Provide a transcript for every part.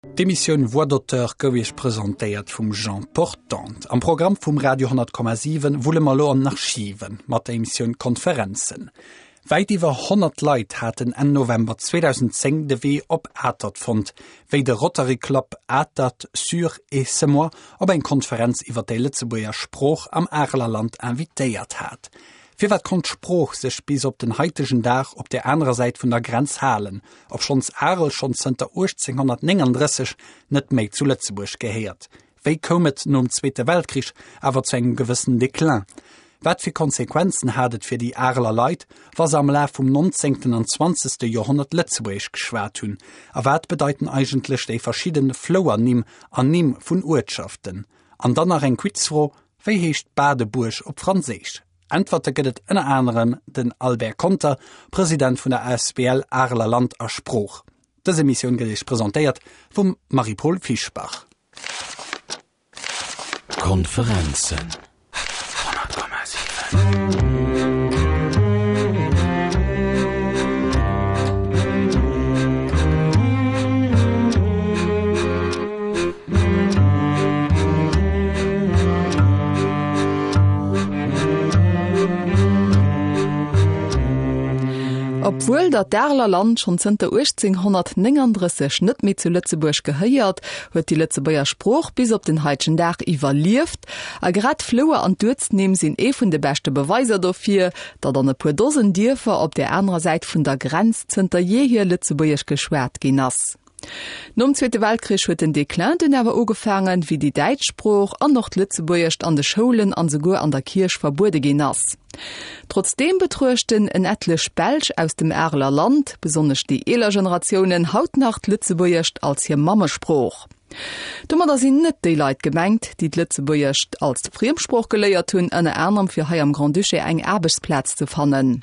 D'Emissioun Voix d'auteur gouf Iech presentéiert vum Jean Portante. Am Programm vum Radio 10,7 wulle mer elo an den Archiven mat der Emissioun Konferenzen. Wäit iwwer 100 Leit haten Enn November 2010 de Wee op Atert fonnt, wéi de Rotary Club Atert Sûre et Semois op eng Konferenz iwwer déi Lëtzebuerger Sprooch am Areler Land invitéiert hat. Firwat konnt d'Sprooch sech bis op den haitegen Dag op där anerer Säit vun der Grenz halen, obschonns Arel schonn zënter 1839 net méi zu Lëtzebuerg gehéiert? Wéi koum et nom Zweete Weltkrich awer zu engem gewëssen Déclin? Wat fir Konsequenzen hat et fir déi Areler Leit, wa se am Laf vum nonzéngten an zwanzegste Joerhonnert Lëtzebuergesch geschwat hunn? A wat bedeiten eigentlech déi verschidden Flouernimm an Nimm vun Uertschaften? An dann nach eng Quizfro, Wéi heescht Badebuerg op Franséisch? Äntwerte gëtt et ënner anerem den Albert Conter, President vun der asbl Areler Land a Sprooch. Dës Emissioun gëtt Iech presentéiert vum Marie-Paule Fischbach. Konferenzen 100,7. Obwuel datt d'Areler Land schonn zënter 1839 net méi zu Lëtzebuerg gehéiert, huet déi Lëtzebuerger Sprooch bis op den haitegen Dag iwwerlieft. A grad d'Flouer an d'Uertsnimm sinn ee vun de beschte Beweiser dofir, datt an e puer Dosen Dierfer op där anerer Säit vun der Grenz zënter jeehier Lëtzebuergesch geschwat ginn ass. Nom Zweete Weltkrich huet den Déclin dunn awer ugefaangen, wéi déi däitsch Sprooch an och d'Lëtzebuergescht an de Schoulen an souguer an der Kierch verbuede ginn ass. Trotzdeem betruechten en ettlech Belsch aus dem Areler Land, besonnesch déi eeler Generatiounen, haut nach d'Lëtzebuergescht als hir Mammesprooch. Domadder sinn net déi Leit gemengt, déi d'Lëtzebuergescht als Friemsprooch geléiert hunn, ënner anerem fir hei am Grand-Duché eng Aarbechtsplaz ze fannen.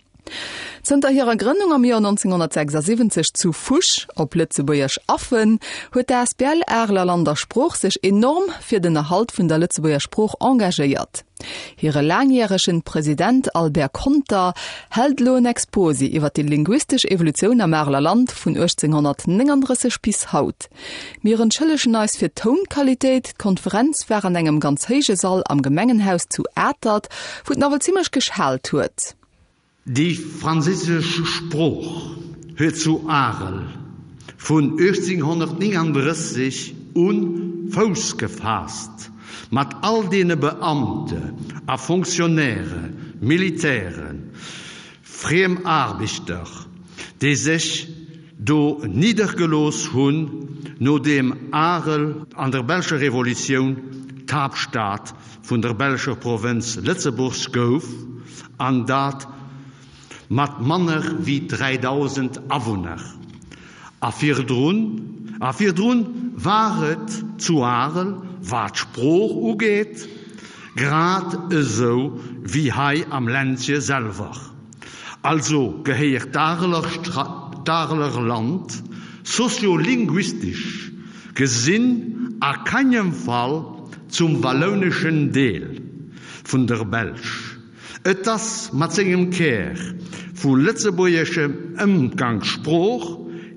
Zënter hirer Grënnung am Joer 1976 zu Fusch, op Lëtzebuergesch Affen, huet d'asbl Areler Land a Sprooch sech enorm fir den Erhalt vun der Lëtzebuerger Sprooch engagéiert. Hire laangjäregen President Albert Conter hält elo en Exposé iwwer déi linguistesch Evolutioun am Areler Land vun 1839 bis haut. Mir entschëllegen eis fir d'Tounqualitéit, d'Konferenz war an engem ganz héije Sall am Gemengenhaus zu Atert, wou et nawell zimmlech geschaalt huet. Déi franséisch Sprooch huet zu Arel vun 1839 u Fouss gefaasst, mat all deene Beamte a Fonctionnaire, Militären, Friemaarbechter, déi sech do niddergelooss hunn, nodeem Arel an der belscher Revolutioun d'Haaptstad vun der belscher Provënz Lëtzebuerg gouf, an dat mat manner wéi 3.000 Awunner. A virdrun, a virdrun war et zu Arel, wat d'Sprooch ugeet, grad esou wéi hei am Ländche selwer. Also gehéiert d'Areler Land soziolinguistesch gesinn a kengem Fall zum wallouneschen Deel vun der Belsch. Et ass mat sengem Kär vu lëtzebuergescher Ëmgangssprooch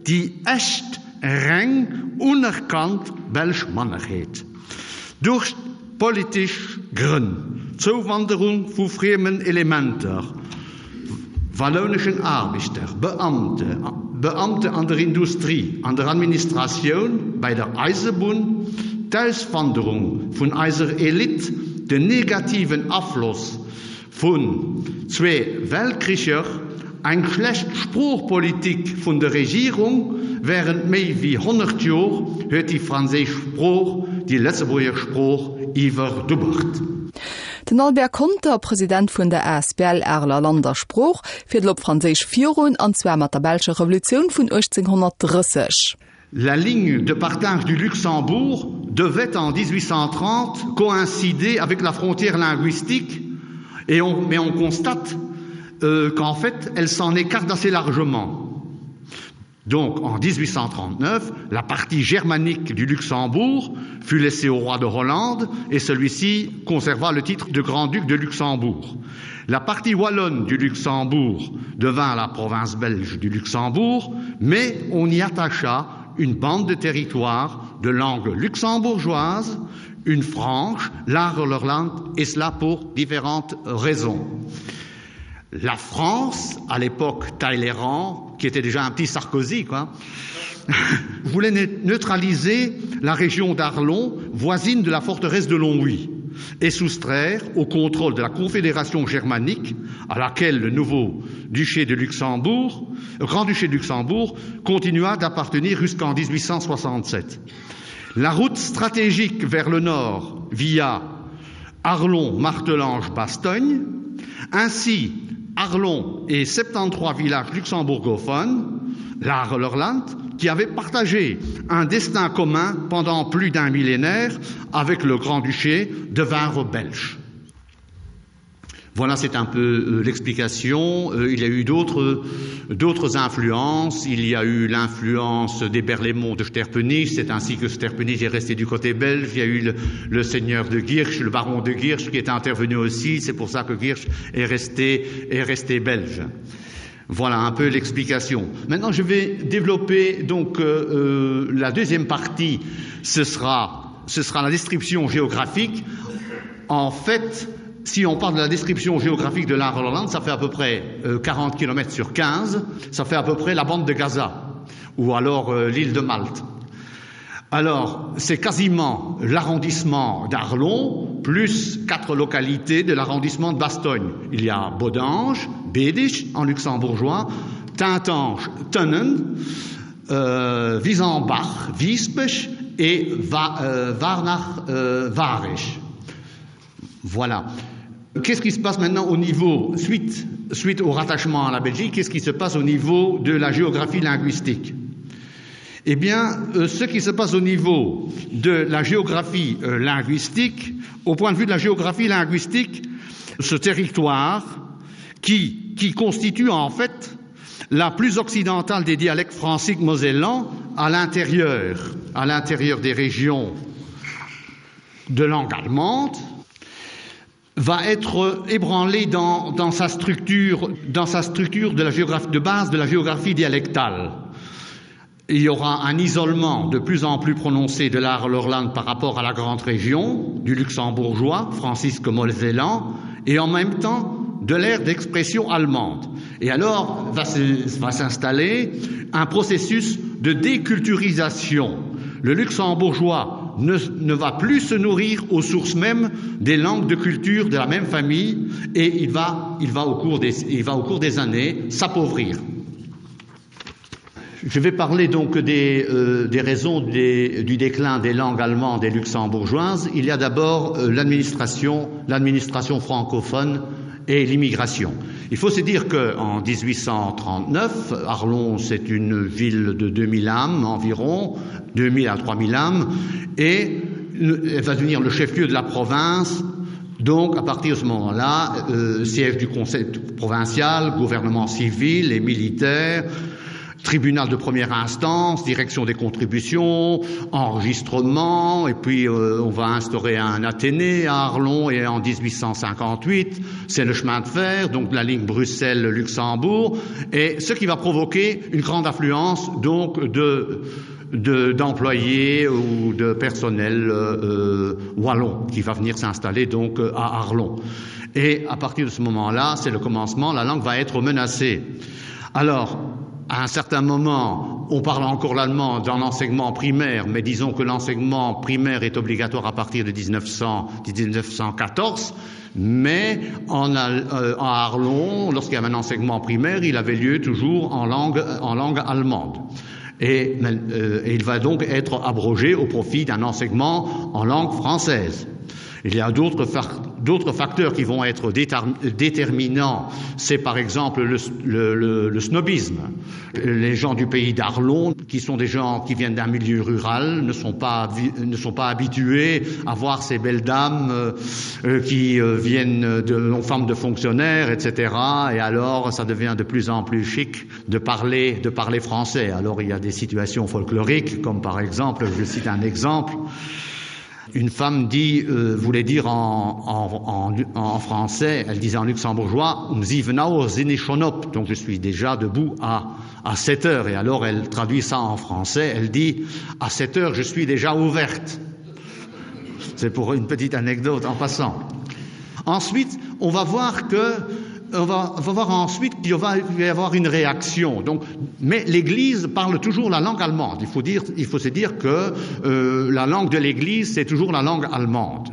déi echt reng unerkannt belsch Mannerheet. Duerch politesch Grënn, d'Zouwanderung vu friemen Elementer, wallouneschen Aarbechter, Beamte, Beamte an der Industrie, an der Administratioun, bei der Eisebunn, d'Auswanderung vun eiser Elite, den negativen Afloss vun zwee Weltkricher, eng schlecht Sproochpolitik vun der Regierung während méi wéi 100 Jor huet déi franséisch Sprooch déi Lëtzebuerger Sprooch iwwerdubbert. Den Albert Conter, President vun der asbl Areler Land a Sprooch, fiert elo op Franséisch virun, an zwar mat der belscher Revolutioun vun 1830. La ligne de partage du Luxembourg devait en 1830 coïncider avec la frontière linguistique et on, mais on constate euh, qu'en fait elle s'en écarte assez largement. Donc en 1839, la partie germanique du Luxembourg fut laissée au roi de Hollande et celui-ci conserva le titre de grand-duc de Luxembourg. La partie wallonne du Luxembourg devint la province belge du Luxembourg, mais on y attacha une bande de territoire. De langue luxembourgeoise, une franche, l'Arlerland, et cela pour différentes raisons. La France, à l'époque Talleyrand, qui était déjà un petit Sarkozy, quoi, voulait neutraliser la région d'Arlon, voisine de la forteresse de Longwy, et soustraire au contrôle de la Confédération germanique, à laquelle le nouveau duché de Luxembourg, grand-duché de Luxembourg, continua d'appartenir jusqu'en 1867. La route stratégique vers le nord via Arlon, Martelange, Bastogne, ainsi Arlon et 73 villages luxembourgophones, l'Arlerland, qui avaient partagé un destin commun pendant plus d'un millénaire avec le grand-duché devinrent belges. Voilà, c'est un peu euh, l'explication. Euh, il y a eu d'autres influences. Il y a eu l'influence des Berlaymont de Sterpenich. C'est ainsi que Sterpenich est resté du côté belge. Il y a eu le, le seigneur de Guirsch, le baron de Guirsch, qui est intervenu aussi. C'est pour ça que Guirsch est resté, est resté belge. Voilà un peu l'explication. Maintenant, je vais développer donc euh, euh, la deuxième partie. Ce sera, ce sera la description géographique. En fait, si on parle de la description géographique de la Hollande, ça fait à peu près 40 euh, km sur 15, ça fait à peu près la bande de Gaza ou alors euh, l'île de Malte. Alors, c'est quasiment l'arrondissement d'Arlon plus quatre localités de l'arrondissement de Bastogne. Il y a Bodange, Bédich en luxembourgeois, Tintange, Tunnen, euh, Wiesenbach, Wiespech et Va, euh, Warnach, euh, Warech. Voilà. Qu'est-ce qui se passe maintenant au niveau suite, suite au rattachement à la Belgique, qu'est-ce qui se passe au niveau de la géographie linguistique? Eh bien, euh, ce qui se passe au niveau de la géographie euh, linguistique, au point de vue de la géographie linguistique, ce territoire qui, qui constitue en fait la plus occidentale des dialectes franciques mosellans à l'intérieur, à l'intérieur des régions de langue allemande, va être ébranlé dans, dans sa structure dans sa structure de la géographie de base de la géographie dialectale. Il y aura un isolement de plus en plus prononcé de l'art l'Orlande par rapport à la grande région du luxembourgeois Francisque Molzelan et en même temps de l'ère d'expression allemande. Et alors va s'installer un processus de déculturisation. Le luxembourgeois ne, ne va plus se nourrir aux sources mêmes des langues de culture de la même famille et il va, il va, au, cours des, il va au cours des années s'appauvrir. Je vais parler donc des, euh, des raisons des, du déclin des langues allemandes et luxembourgeoises. Il y a d'abord euh, l'administration, l'administration francophone et l'immigration. Il faut se dire qu'en 1839, Arlon, c'est une ville de 2000 âmes environ, 2000 à 3000 âmes, et elle va devenir le chef-lieu de la province. Donc, à partir de ce moment-là, euh, siège du conseil provincial, gouvernement civil et militaire, tribunal de première instance, direction des contributions, enregistrement, et puis euh, on va instaurer un Athénée à Arlon et en 1858, c'est le chemin de fer, donc la ligne Bruxelles-Luxembourg, et ce qui va provoquer une grande affluence donc de d'employés de, ou de personnel euh, euh, wallon qui va venir s'installer donc à Arlon. Et à partir de ce moment-là, c'est le commencement, la langue va être menacée. Alors, à un certain moment, on parle encore l'allemand dans l'enseignement primaire, mais disons que l'enseignement primaire est obligatoire à partir de 1900, 1914, mais en, euh, en Arlon, lorsqu'il y avait un enseignement primaire, il avait lieu toujours en langue, en langue allemande. Et, euh, et il va donc être abrogé au profit d'un enseignement en langue française. Il y a d'autres d'autres facteurs qui vont être déterminants, c'est par exemple le, le, le, le snobisme. Les gens du pays d'Arlon, qui sont des gens qui viennent d'un milieu rural, ne sont pas, ne sont pas habitués à voir ces belles dames euh, euh qui euh, viennent de non femmes de fonctionnaires, etc. Et alors ça devient de plus en plus chic de parler, de parler français. Alors il y a des situations folkloriques, comme par exemple, je cite un exemple. Une femme dit euh, voulait dire en, en, en, en français, elle disait en luxembourgeois um donc je suis déjà debout à, à 7 heures et alors elle traduit ça en français, elle dit à 7 heures je suis déjà ouverte. C'est pour une petite anecdote en passant. Ensuite, on va voir que on va, on va voir ensuite qu'il va y avoir une réaction. Donc, mais l'Église parle toujours la langue allemande. Il faut, dire, il faut se dire que euh, la langue de l'Église, c'est toujours la langue allemande.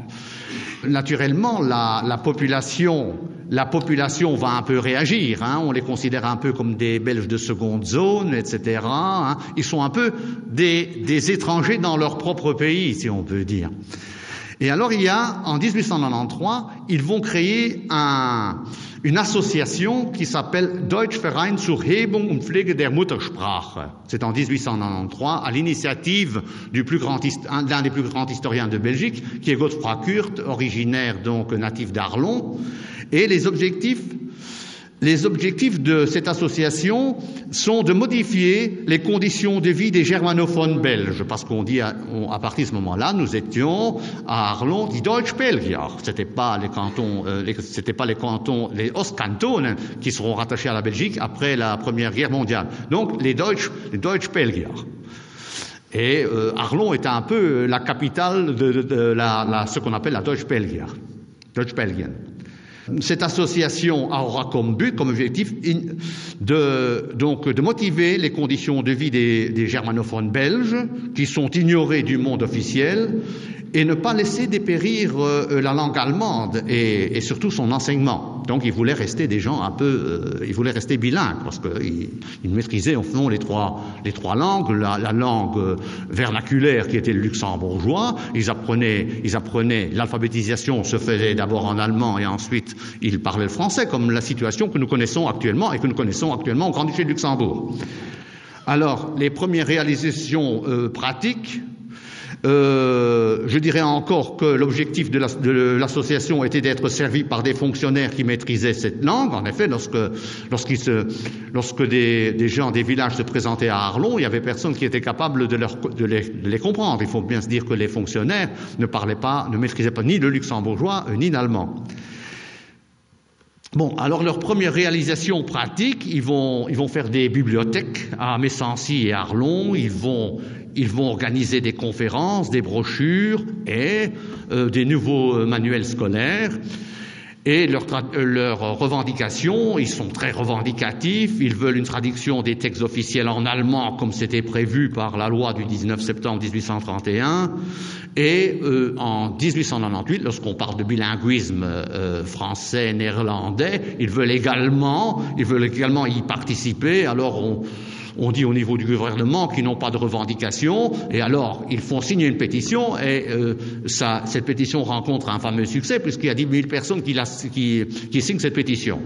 Naturellement, la, la population la population va un peu réagir hein, on les considère un peu comme des belges de seconde zone etc hein. ils sont un peu des, des étrangers dans leur propre pays si on peut dire et alors il y a en 1893 ils vont créer un une association qui s'appelle Deutsch Verein zur Hebung und Pflege der Muttersprache. C'est en 1893 à l'initiative du plus grand l'un des plus grands historiens de Belgique, qui est Godefroy Kurt, originaire donc natif d'Arlon. Et les objectifs Les objectifs de cette association sont de modifier les conditions de vie des germanophones belges, parce qu'on dit à, on, à partir de ce moment-là, nous étions à Arlon, dit Deutsch Belgier. Ce n'était pas les cantons, euh, les, c'était pas les cantons, les Ostkantonen qui seront rattachés à la Belgique après la Première Guerre mondiale. Donc les Deutsch, les Deutsch Belgier. Et euh, Arlon est un peu la capitale de, de, de la, la, ce qu'on appelle la Deutsch Belgier. Deutsch Belgien. Cette association aura comme but, comme objectif de, donc, de motiver les conditions de vie des, des germanophones belges qui sont ignorés du monde officiel et ne pas laisser dépérir euh, la langue allemande et, et surtout son enseignement. Donc il voulait rester des gens un peu euh, il voulait rester bilingue parce qu'il il maîtrisait au fond les trois, les trois langues, la, la langue euh, vernaculaire qui était le luxembourgeois, ils apprenaient, ils apprenaient l'alphabétisation se faisait d'abord en allemand et ensuite ils parlaient le français comme la situation que nous connaissons actuellement et que nous connaissons actuellement au Grand-Duché de Luxembourg. Alors les premières réalisations euh, pratiques, Euh, je dirais encore que l'objectif de l'association était d'être servi par des fonctionnaires qui maîtrisaient cette langue. En effet, lorsque, se, lorsque des, des gens des villages se présentaient à Arlon, il n'y avait personne qui était capable de, leur, de, les, de les comprendre. Il faut bien se dire que les fonctionnaires ne parlaient pas, ne maîtrisaient pas ni le luxembourgeois euh, ni l'allemand. Bon, alors leur première réalisation pratique, ils vont, ils vont faire des bibliothèques à Messancy et Arlon, ils vont, ils vont organiser des conférences, des brochures et euh, des nouveaux euh, manuels scolaires. Et leurs euh, leur revendications, ils sont très revendicatifs, ils veulent une traduction des textes officiels en allemand comme c'était prévu par la loi du 19 septembre 1831. Et euh, en 1898, lorsqu'on parle de bilinguisme euh, français-néerlandais, ils veulent également, ils veulent également y participer. Alors on, on dit au niveau du gouvernement qu'ils n'ont pas de revendications et alors ils font signer une pétition et euh, ça, cette pétition rencontre un fameux succès puisqu'il y a 10 000 personnes qui, la, qui, qui signent cette pétition.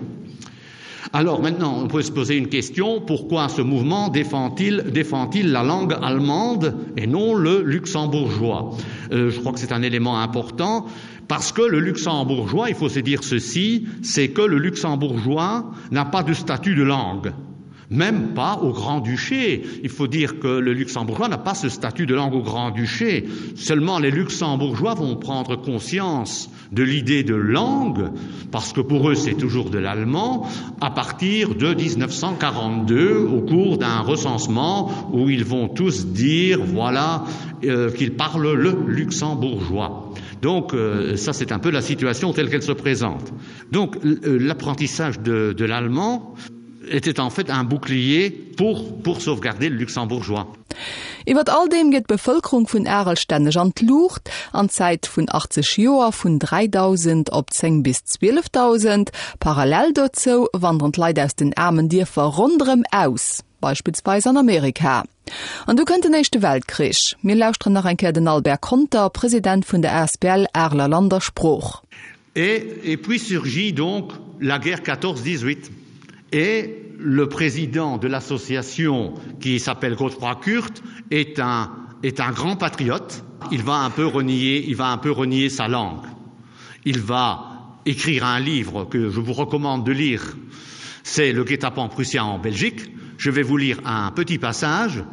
Alors maintenant, on peut se poser une question pourquoi ce mouvement défend-il défend la langue allemande et non le luxembourgeois euh, Je crois que c'est un élément important parce que le luxembourgeois, il faut se dire ceci, c'est que le luxembourgeois n'a pas de statut de langue même pas au Grand-Duché. Il faut dire que le luxembourgeois n'a pas ce statut de langue au Grand-Duché. Seulement les luxembourgeois vont prendre conscience de l'idée de langue, parce que pour eux c'est toujours de l'allemand, à partir de 1942, au cours d'un recensement où ils vont tous dire voilà euh, qu'ils parlent le luxembourgeois. Donc euh, ça c'est un peu la situation telle qu'elle se présente. Donc euh, l'apprentissage de, de l'allemand, était en fait un bouclier pour, pour sauvegarder le luxembourgeois. Iwwer all deem geet d'Bevëlkerung vun Arel stänneg an d'Luucht, an Zäit vun 80 Joer vun 3.000 op 10 bis 12.000. Parallel dozou wanderen d'Leit aus den aarmen Dierfer ronderëm aus, beispillsweis an Amerika. An du kënnt den Éischte Weltkrich. Mir lauschteren nach eng Kéier den Albert Conter, President vun der asbl Areler Land a Sprooch. Et, et puis surgit donc la guerre 14-18 et le président de l'association qui s'appelle Godefroy Kurt est un, est un grand patriote. Il va un peu renier, il va un peu renier sa langue. Il va écrire un livre que je vous recommande de lire. C'est le guet-apens prussien en Belgique. Je vais vous lire un petit passage.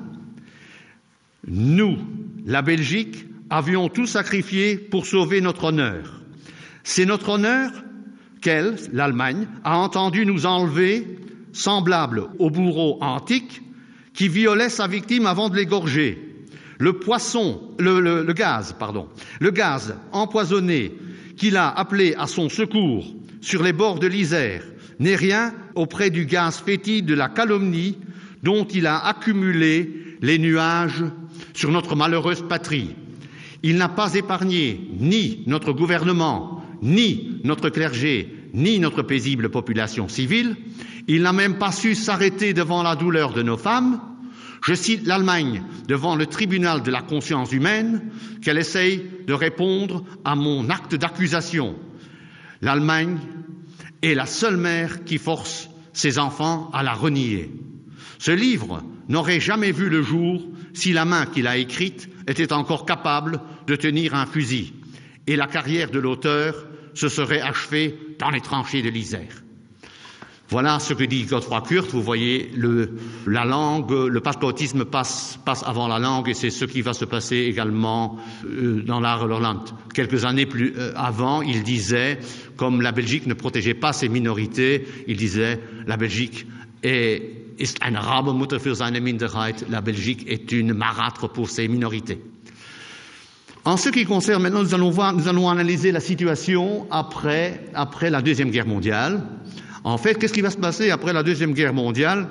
Nous, la Belgique, avions tout sacrifié pour sauver notre honneur. C'est notre honneur qu'elle, l'Allemagne, a entendu nous enlever, semblable au bourreau antique qui violait sa victime avant de l'égorger. Le poisson le, le, le gaz pardon, le gaz empoisonné qu'il a appelé à son secours sur les bords de l'Isère n'est rien auprès du gaz fétide de la calomnie dont il a accumulé les nuages sur notre malheureuse patrie. Il n'a pas épargné ni notre gouvernement, ni notre clergé, ni notre paisible population civile. Il n'a même pas su s'arrêter devant la douleur de nos femmes. Je cite l'Allemagne devant le tribunal de la conscience humaine qu'elle essaye de répondre à mon acte d'accusation. L'Allemagne est la seule mère qui force ses enfants à la renier. Ce livre n'aurait jamais vu le jour si la main qu'il a écrite était encore capable de tenir un fusil et la carrière de l'auteur se serait achevée dans les tranchées de l'Isère. Voilà ce que dit Godefroy Kurt. Vous voyez le, la langue, le patriotisme passe, passe avant la langue et c'est ce qui va se passer également euh, dans l'art Lorland. Quelques années plus euh, avant, il disait, comme la Belgique ne protégeait pas ses minorités, il disait la Belgique est, ist eine Rabemutter für seine Minderheit, la Belgique est une marâtre pour ses minorités. En ce qui concerne maintenant, nous allons, voir, nous allons analyser la situation après, après la Deuxième Guerre mondiale. En fait, qu'est-ce qui va se passer après la Deuxième Guerre mondiale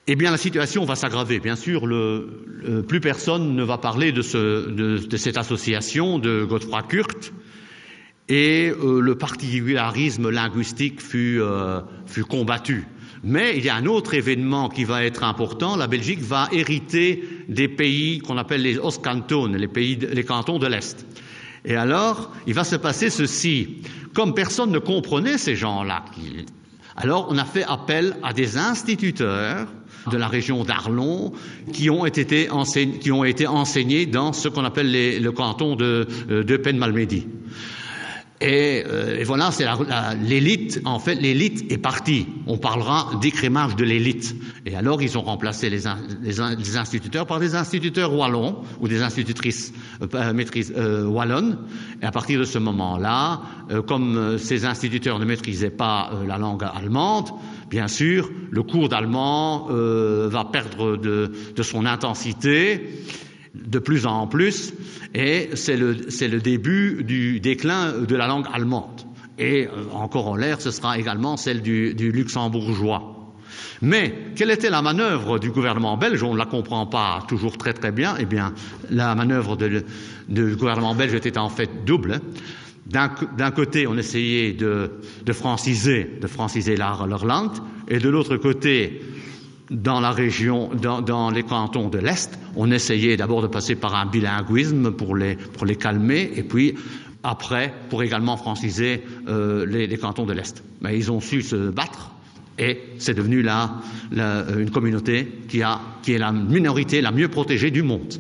Eh bien, la situation va s'aggraver. Bien sûr, le, le, plus personne ne va parler de, ce, de, de cette association de Godefroy Kurt et euh, le particularisme linguistique fut, euh, fut combattu. Mais il y a un autre événement qui va être important. La Belgique va hériter des pays qu'on appelle les Ostcantones, les, pays, les cantons de l'Est. Et alors, il va se passer ceci. Comme personne ne comprenait ces gens-là, alors on a fait appel à des instituteurs de la région d'Arlon qui ont été enseignés, qui ont été enseignés dans ce qu'on appelle les, le canton de, euh, de Penmalmédy. Et, euh, et voilà, c'est l'élite, en fait, l'élite est partie. On parlera d'écrémage de l'élite. Et alors, ils ont remplacé les, les, les instituteurs par des instituteurs wallons ou des institutrices euh, euh, maîtrises euh, wallonnes. Et à partir de ce moment-là, euh, comme euh, ces instituteurs ne maîtrisaient pas euh, la langue allemande, bien sûr, le cours d'allemand euh, va perdre de, de son intensité de plus en plus et c'est le, le début du déclin de la langue allemande. Et euh, encore en l'air, ce sera également celle du, du luxembourgeois. Mais quelle était la manœuvre du gouvernement belge On ne la comprend pas toujours très très bien. Eh bien, la manœuvre de, du gouvernement belge était en fait double. D'un côté, on essayait de, de franciser, de franciser l'Irlande, et de l'autre côté, dans la région, dans, dans les cantons de l'Est, on essayait d'abord de passer par un bilinguisme pour les, pour les calmer, et puis après, pour également franciser euh, les, les cantons de l'Est. Mais ils ont su se battre, et c'est devenu la, la, une communauté qui, a, qui est la minorité la mieux protégée du monde.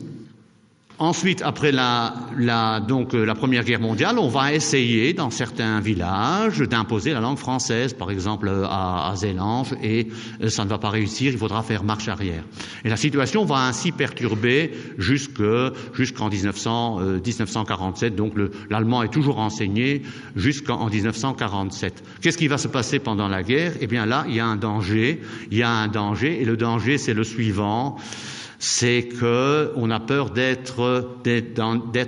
Ensuite, après la, la, donc, euh, la Première Guerre mondiale, on va essayer dans certains villages d'imposer la langue française, par exemple euh, à, à Zélange, et euh, ça ne va pas réussir, il faudra faire marche arrière. Et la situation va ainsi perturber jusqu'en jusqu 1900, euh, 1947, donc l'allemand est toujours enseigné jusqu'en 1947. Qu'est-ce qui va se passer pendant la guerre Eh bien là, il y a un danger, il y a un danger, et le danger, c'est le suivant c'est qu'on a peur d'être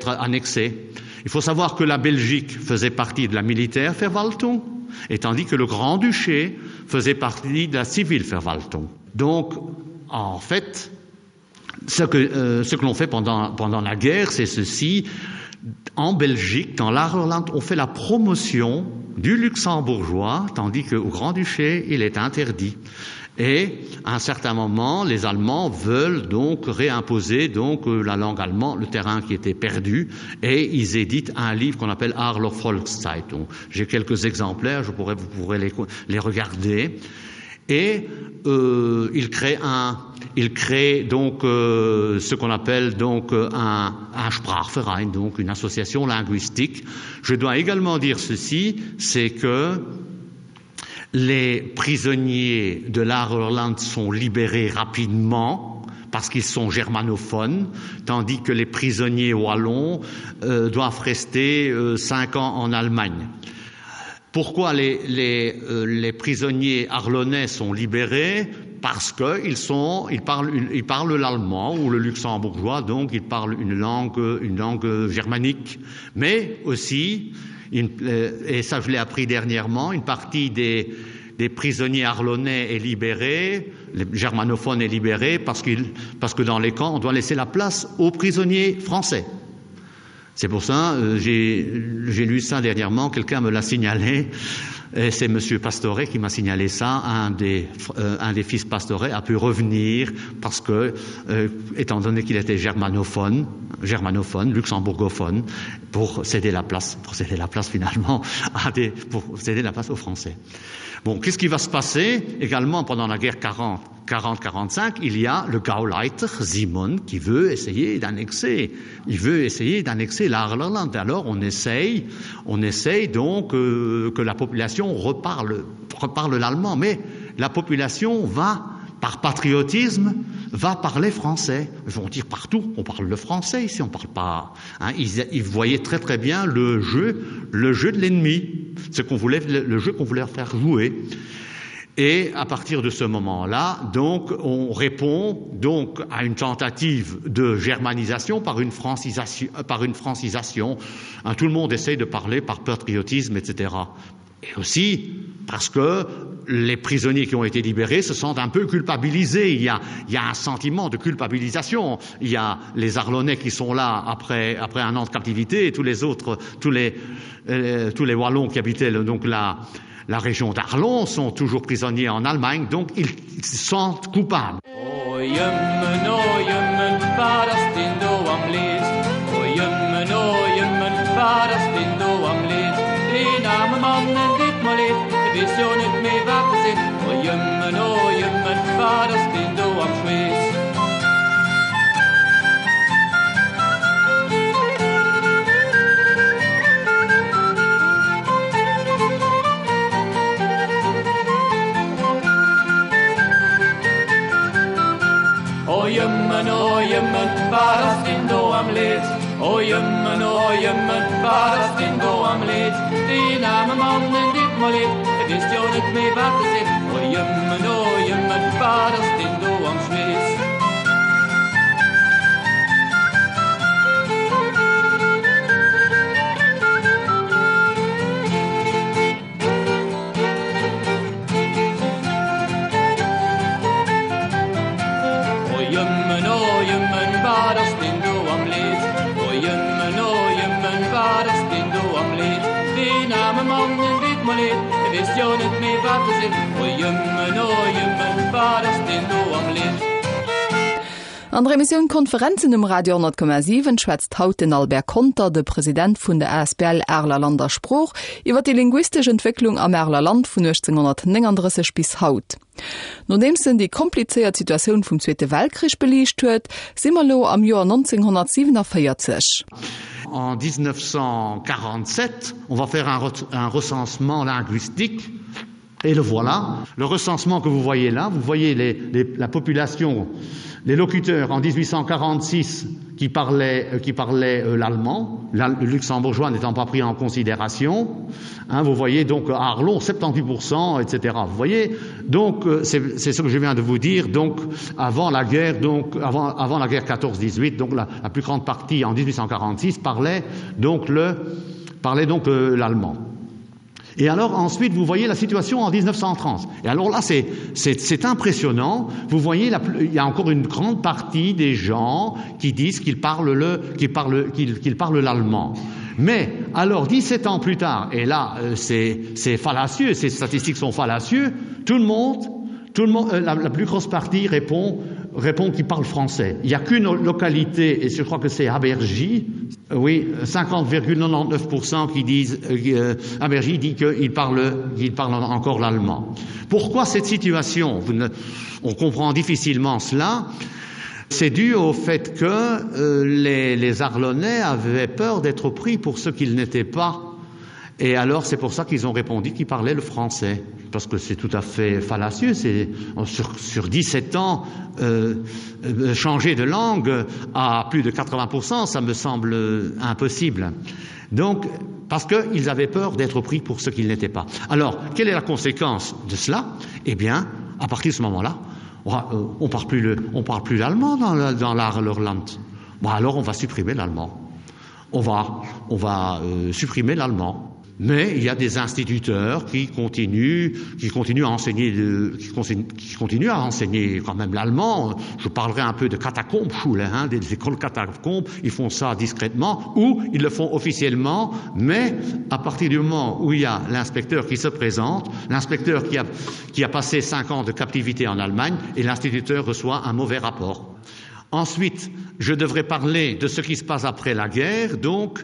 annexé. Il faut savoir que la Belgique faisait partie de la militaire Verwaltung, et tandis que le Grand-Duché faisait partie de la civile Verwaltung. Donc, en fait, ce que, euh, ce que l'on fait pendant, pendant la guerre, c'est ceci. En Belgique, dans l'Arland, on fait la promotion du luxembourgeois, tandis qu'au Grand-Duché, il est interdit. Et à un certain moment, les Allemands veulent donc réimposer donc euh, la langue allemande, le terrain qui était perdu, et ils éditent un livre qu'on appelle Arler Volkszeitung. J'ai quelques exemplaires, je pourrais, vous pourrez les, les regarder. Et euh, il crée un il crée donc euh, ce qu'on appelle donc euh, un, un Sprachverein, donc une association linguistique. Je dois également dire ceci, c'est que les prisonniers de l'Arland sont libérés rapidement. parce qu'ils sont germanophones, tandis que les prisonniers wallons euh, doivent rester euh, cinq ans en Allemagne. Pourquoi les, les, euh, les prisonniers arlonnais sont libérés parce qu'ils sont ils parlent ils parlent l'allemand ou le luxembourgeois donc ils parlent une langue une langue germanique mais aussi une, euh, et ça je l'ai appris dernièrement une partie des des prisonniers arlonnais est libérée les germanophones est libéré parce qu'il parce que dans les camps on doit laisser la place aux prisonniers français C'est pour ça euh, j'ai lu ça dernièrement, quelqu'un me l'a signalé et c'est monsieur Pastoret qui m'a signalé ça un des, euh, un des fils Pastoret a pu revenir parce que euh, étant donné qu'il était germanophone germanophone luxembourgophone pour céder la place pour céder la place finalement à des, pour céder la place aux français. Bon qu'est-ce qui va se passer également pendant la guerre 40 40 45 il y a le Gauleiter Simon qui veut essayer d'annexer il veut essayer d'annexer l'Arland alors on essaye on essaye donc euh, que la population reparle reparle l'allemand mais la population va par patriotisme va parler français ils vont dire partout on parle le français ici on parle pas hein, ils, ils voyaient très très bien le jeu le jeu de l'ennemi ce qu'on voulait le jeu qu'on voulait faire jouer Et à partir de ce moment-là, donc on répond donc à une tentative de germanisation par une francisation par une francisation. Hein, tout le monde essaye de parler par patriotisme, etc. Et aussi parce que les prisonniers qui ont été libérés se sentent un peu culpabilisés. Il y a, il y a un sentiment de culpabilisation. Il y a les Arlonnais qui sont là après, après un an de captivité et tous les autres tous les, euh, tous les Wallons qui habitaient le, donc la, la région d'Arlon sont toujours prisonniers en Allemagne, donc ils se sentent coupables. Oh, jëmmen, oh, jëmmen, wat ass deen do am Leed? Oh, jëmmen, oh, jëmmen, wat ass deen do am Leed? Deen aarme Mann, en deet mer leed, e weess jo net méi wat e seet. Oh, jëmmen, oh, jëmmen, wat ass deen do am Schweess? O jëmmen, o jëmmen, wat ass deen do am Leed? O jëmmen, o jëmmen, wat ass deen do am Leed? Deen aarme Mann, en deet mer leed, e weess jo net méi wat e seet. O jëmmen, o jëmmen, wat ass deen do am Schweess? O jëmmen, o jëmmen, wat ass deen do am Leed? O jëmmen, o jëmmen, wat ass deen do am Leed? Deen aarme Mann, en deet mer leed, e weess jo net méi wat e seet. O jëmmen, o jëmmen, wat ass deen do am Leed? An der Emissioun Konferenzen um Radio 10,7 schwätzt haut den Albert Conter, de President vun der asbl Areler Land a Sprooch, iwwer déi linguistesch Entwécklung am Areler Land vun 1839 bis haut. Nodeems en déi komplizéiert Situatioun vum Zweete Weltkrich beliicht huet, si mer elo am Joer 1947. En 1947, on va faire un, un recensement linguistique Et le voilà. Le recensement que vous voyez là, vous voyez les, les, la population, les locuteurs en 1846 qui parlaient, euh, qui parlaient euh, l'allemand, le luxembourgeois n'étant pas pris en considération. Hein, vous voyez donc à Arlon 78%, etc. Vous voyez donc euh, c'est ce que je viens de vous dire donc avant la guerre donc avant, avant la guerre 14-18 donc la, la plus grande partie en 1846 parlait donc le parlait donc euh, l'allemand. Et alors ensuite vous voyez la situation en 1930 et alors là c'est impressionnant vous voyez la, il y a encore une grande partie des gens qui disent qu'ils parlent le qui parlent qu'ils qu parlent l'allemand mais alors 17 ans plus tard et là euh, c'est fallacieux ces statistiques sont fallacieux tout le monde tout le monde euh, la, la plus grosse partie répond répond qu'il parle français il n'y a qu'une localité et je crois que c'est Abergy oui 50,99 qui disent euh, Abergy dit qu'il parle qu'il parle encore l'allemand pourquoi cette situation Vous ne, on comprend difficilement cela c'est dû au fait que euh, les, les arlonnais avaient peur d'être pris pour ce qu'ils n'étaient pas. Et alors c'est pour ça qu'ils ont répondu qu'ils parlaient le français parce que c'est tout à fait fallacieux c'est sur, sur 17 ans euh, euh, changer de langue à plus de 80 ça me semble impossible. Donc parce qu'ils avaient peur d'être pris pour ce qu'ils n'étaient pas. Alors quelle est la conséquence de cela? Eh bien à partir de ce moment-là, on, euh, on parle plus le, on parle plus l'allemand dans, dans l'art leur land. Bon, alors on va supprimer l'allemand. On va, on va euh, supprimer l'allemand. Mais il y a des instituteurs qui continuent, qui continuent à enseigner le, qui, qui continuent à enseigner quand même l'allemand. Je parlerai un peu de catacombes, hein, des écoles catacombes, ils font ça discrètement ou ils le font officiellement, mais à partir du moment où il y a l'inspecteur qui se présente, l'inspecteur qui a, qui a passé cinq ans de captivité en Allemagne et l'instituteur reçoit un mauvais rapport. Ensuite, je devrais parler de ce qui se passe après la guerre, donc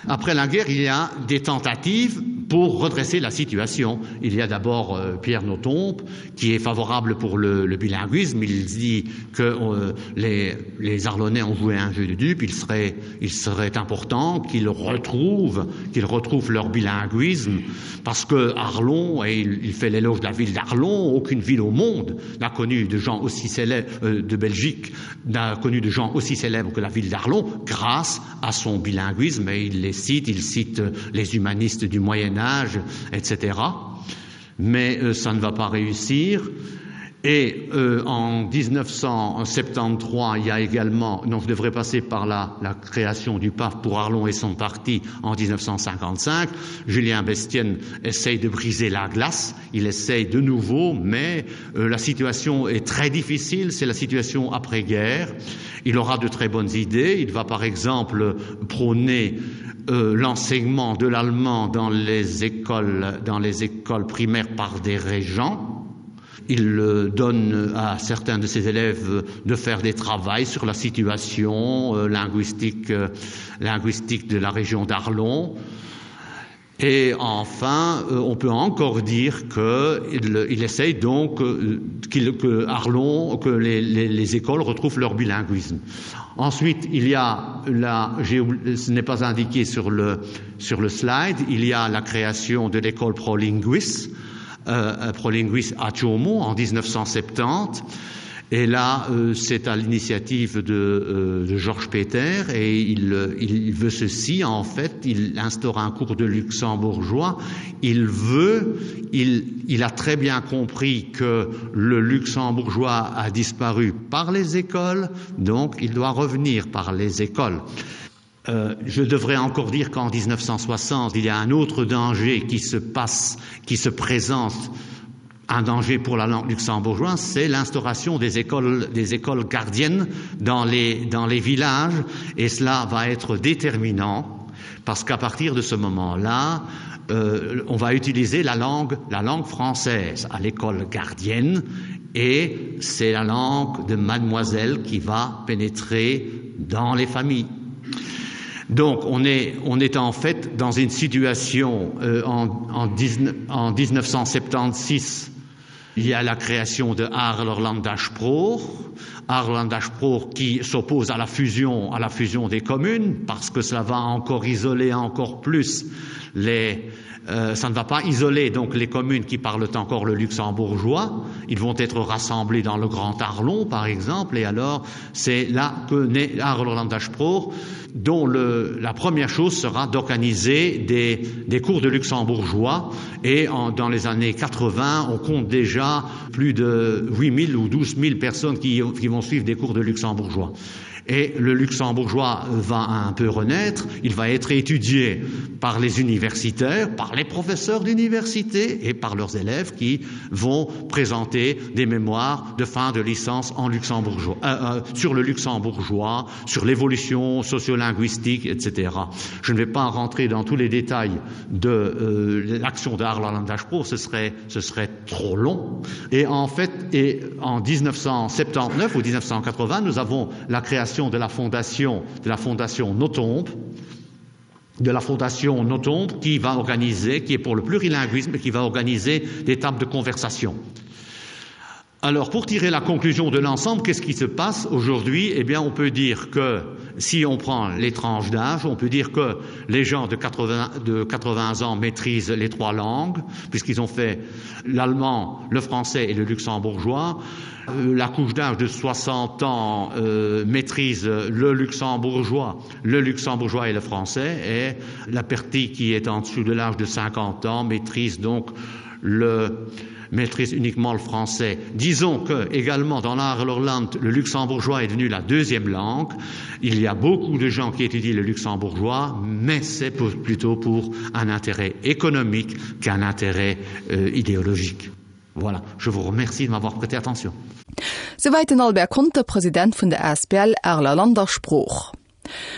Après la guerre, il y a des tentatives pour redresser la situation. Il y a d'abord euh, Pierre Notompe qui est favorable pour le, le bilinguisme. Il dit que euh, les, les Arlonnais ont joué un jeu de dupes. Il serait, il serait important qu'ils retrouvent, qu'ils retrouvent leur bilinguisme parce que Arlon, et il, il fait l'éloge de la ville d'Arlon, aucune ville au monde n'a connu de gens aussi célèbres euh, de Belgique n'a connu de gens aussi célèbres que la ville d'Arlon grâce à son bilinguisme et il les cite, il cite les humanistes du Moyen Âge, etc. Mais euh, ça ne va pas réussir. Et euh, en 1973, il y a également donc je devrais passer par la, la création du PAF pour Arlon et son parti en 1955. Julien Bestienne essaye de briser la glace, il essaye de nouveau, mais euh, la situation est très difficile, c'est la situation après-guerre. Il aura de très bonnes idées, il va par exemple prôner euh, l'enseignement de l'allemand dans les écoles dans les écoles primaires par des régents. Il euh, donne à certains de ses élèves de faire des travaux sur la situation euh, linguistique, euh, linguistique de la région d'Arlon. Et enfin, on peut encore dire qu'il il essaye donc qu'il que Arlon, que les, les, les écoles retrouvent leur bilinguisme. Ensuite, il y a la, ce n'est pas indiqué sur le, sur le slide, il y a la création de l'école prolinguis, euh, prolinguis à Chomo en 1970. Et là, euh, c'est à l'initiative de, euh, de Georges Peter et il, euh, il veut ceci en fait, il instaure un cours de luxembourgeois. Il veut, il, il a très bien compris que le luxembourgeois a disparu par les écoles, donc il doit revenir par les écoles. Euh, je devrais encore dire qu'en 1960, il y a un autre danger qui se passe, qui se présente un danger pour la langue luxembourgeoise, c'est l'instauration des écoles, des écoles gardiennes dans les, dans les villages et cela va être déterminant parce qu'à partir de ce moment-là, euh, on va utiliser la langue, la langue française à l'école gardienne et c'est la langue de mademoiselle qui va pénétrer dans les familles. Donc on est, on est en fait dans une situation euh, en, en, 19, en 1976 il y a la création de Arlerlandashproch, Arlandashproch qui s'oppose à la fusion à la fusion des communes parce que cela va encore isoler encore plus les, euh, ça ne va pas isoler donc les communes qui parlent encore le luxembourgeois ils vont être rassemblés dans le grand Arlon par exemple et alors c'est là que naît Arlandashproch dont le, la première chose sera d'organiser des, des cours de luxembourgeois et en, dans les années 80 on compte déjà plus de 8000 ou 12 000 personnes qui, qui vont suivre des cours de luxembourgeois et le luxembourgeois va un peu renaître, il va être étudié par les universitaires, par les professeurs d'université et par leurs élèves qui vont présenter des mémoires de fin de licence en luxembourgeois, euh, euh, sur le luxembourgeois, sur l'évolution sociolinguistique, etc. Je ne vais pas rentrer dans tous les détails de euh, l'action d'Arlandashpro, ce serait, ce serait trop long. Et en fait, et en 1979 ou 1980, nous avons la création de la fondation de la fondation Notombe, de la fondation Notombe qui va organiser, qui est pour le plurilinguisme et qui va organiser des tables de conversation. Alors pour tirer la conclusion de l'ensemble, qu'est-ce qui se passe aujourd'hui Eh bien on peut dire que si on prend les tranches d'âge, on peut dire que les gens de 80, de 80 ans maîtrisent les trois langues puisqu'ils ont fait l'allemand, le français et le luxembourgeois. Euh, la couche d'âge de 60 ans euh, maîtrise le luxembourgeois, le luxembourgeois et le français et la partie qui est en dessous de l'âge de 50 ans maîtrise donc le maîtrise uniquement le français. Disons que également dans l'Arlorland, le luxembourgeois est devenu la deuxième langue. Il y a beaucoup de gens qui étudient le luxembourgeois, mais c'est plutôt pour un intérêt économique qu'un intérêt euh, idéologique. Voilà, je vous remercie de m'avoir prêté attention. Souwäit den Albert Conter, President vun der asbl Areler Land a Sprooch.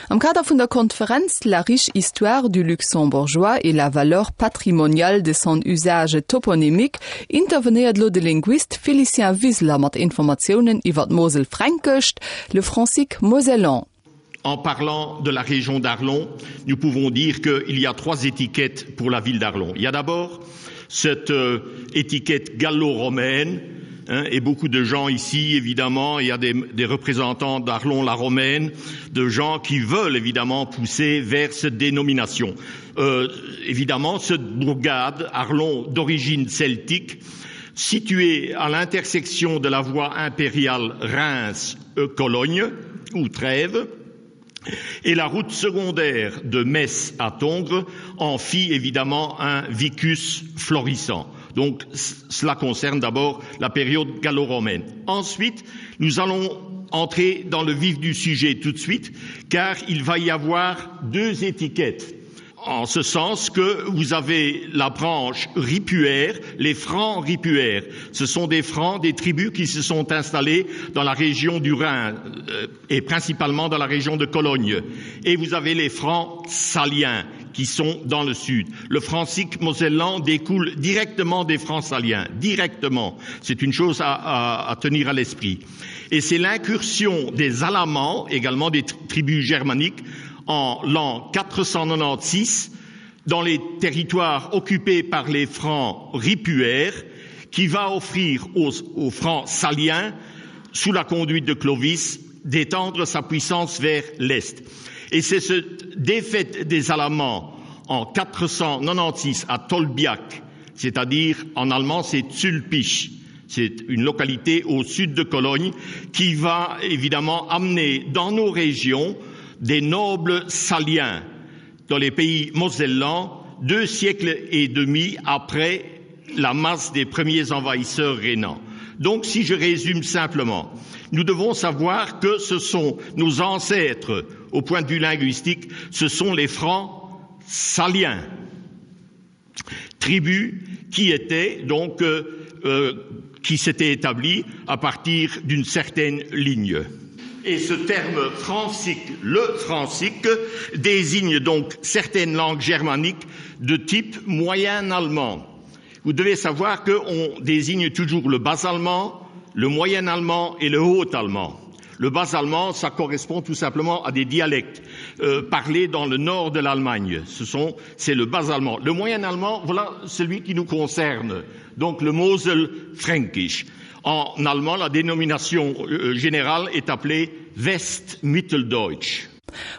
Am Kader vun der Konferenz La riche histoire du luxembourgeois et la valeur patrimoniale de son usage toponymique intervenéiert elo de Linguist Félicien Wiseler mat Informatiounen iwwer d'Moselfränkescht, le francique mosellan. En parlant de la région d'Arlon, nous pouvons dire qu'il y a trois étiquettes pour la ville d'Arlon. Il y a d'abord cette euh, étiquette gallo-romaine hein, et beaucoup de gens ici évidemment, il y a des, des représentants d'Arlon la romaine, de gens qui veulent évidemment pousser vers cette dénomination. Euh, évidemment, cette bourgade Arlon d'origine celtique, située à l'intersection de la voie impériale Reims-Cologne ou Trèves, et la route secondaire de Metz à Tongres en fit évidemment un vicus florissant. Donc cela concerne d'abord la période gallo-romaine. Ensuite, nous allons entrer dans le vif du sujet tout de suite, car il va y avoir deux étiquettes en ce sens que vous avez la branche ripuaire, les francs ripuaires. Ce sont des francs des tribus qui se sont installés dans la région du Rhin euh, et principalement dans la région de Cologne. Et vous avez les francs saliens qui sont dans le sud. Le francique mosellan découle directement des francs saliens, directement. C'est une chose à, à, à tenir à l'esprit. Et c'est l'incursion des Alamans, également des tribus germaniques, en l'an 496 dans les territoires occupés par les francs ripuaires qui va offrir aux, aux francs saliens sous la conduite de Clovis d'étendre sa puissance vers l'est. Et c'est cette défaite des Alamans en 496 à Tolbiac, c'est-à-dire en allemand c'est Zulpich, c'est une localité au sud de Cologne qui va évidemment amener dans nos régions des nobles saliens dans les pays mosellans deux siècles et demi après la masse des premiers envahisseurs rhénans. Donc si je résume simplement, nous devons savoir que ce sont nos ancêtres au point de vue linguistique, ce sont les francs saliens, tribus qui étaient donc euh, euh, qui s'étaient établies à partir d'une certaine ligne. Et ce terme francique, le francique, désigne donc certaines langues germaniques de type moyen allemand. Vous devez savoir qu'on désigne toujours le bas allemand, le moyen allemand et le haut allemand. Le bas allemand, ça correspond tout simplement à des dialectes euh, parlés dans le nord de l'Allemagne. Ce sont c'est le bas allemand. Le moyen allemand, voilà celui qui nous concerne, donc le Mosel fränkisch. En allemand, la dénomination euh, générale est appelée Westmitteldeutsch.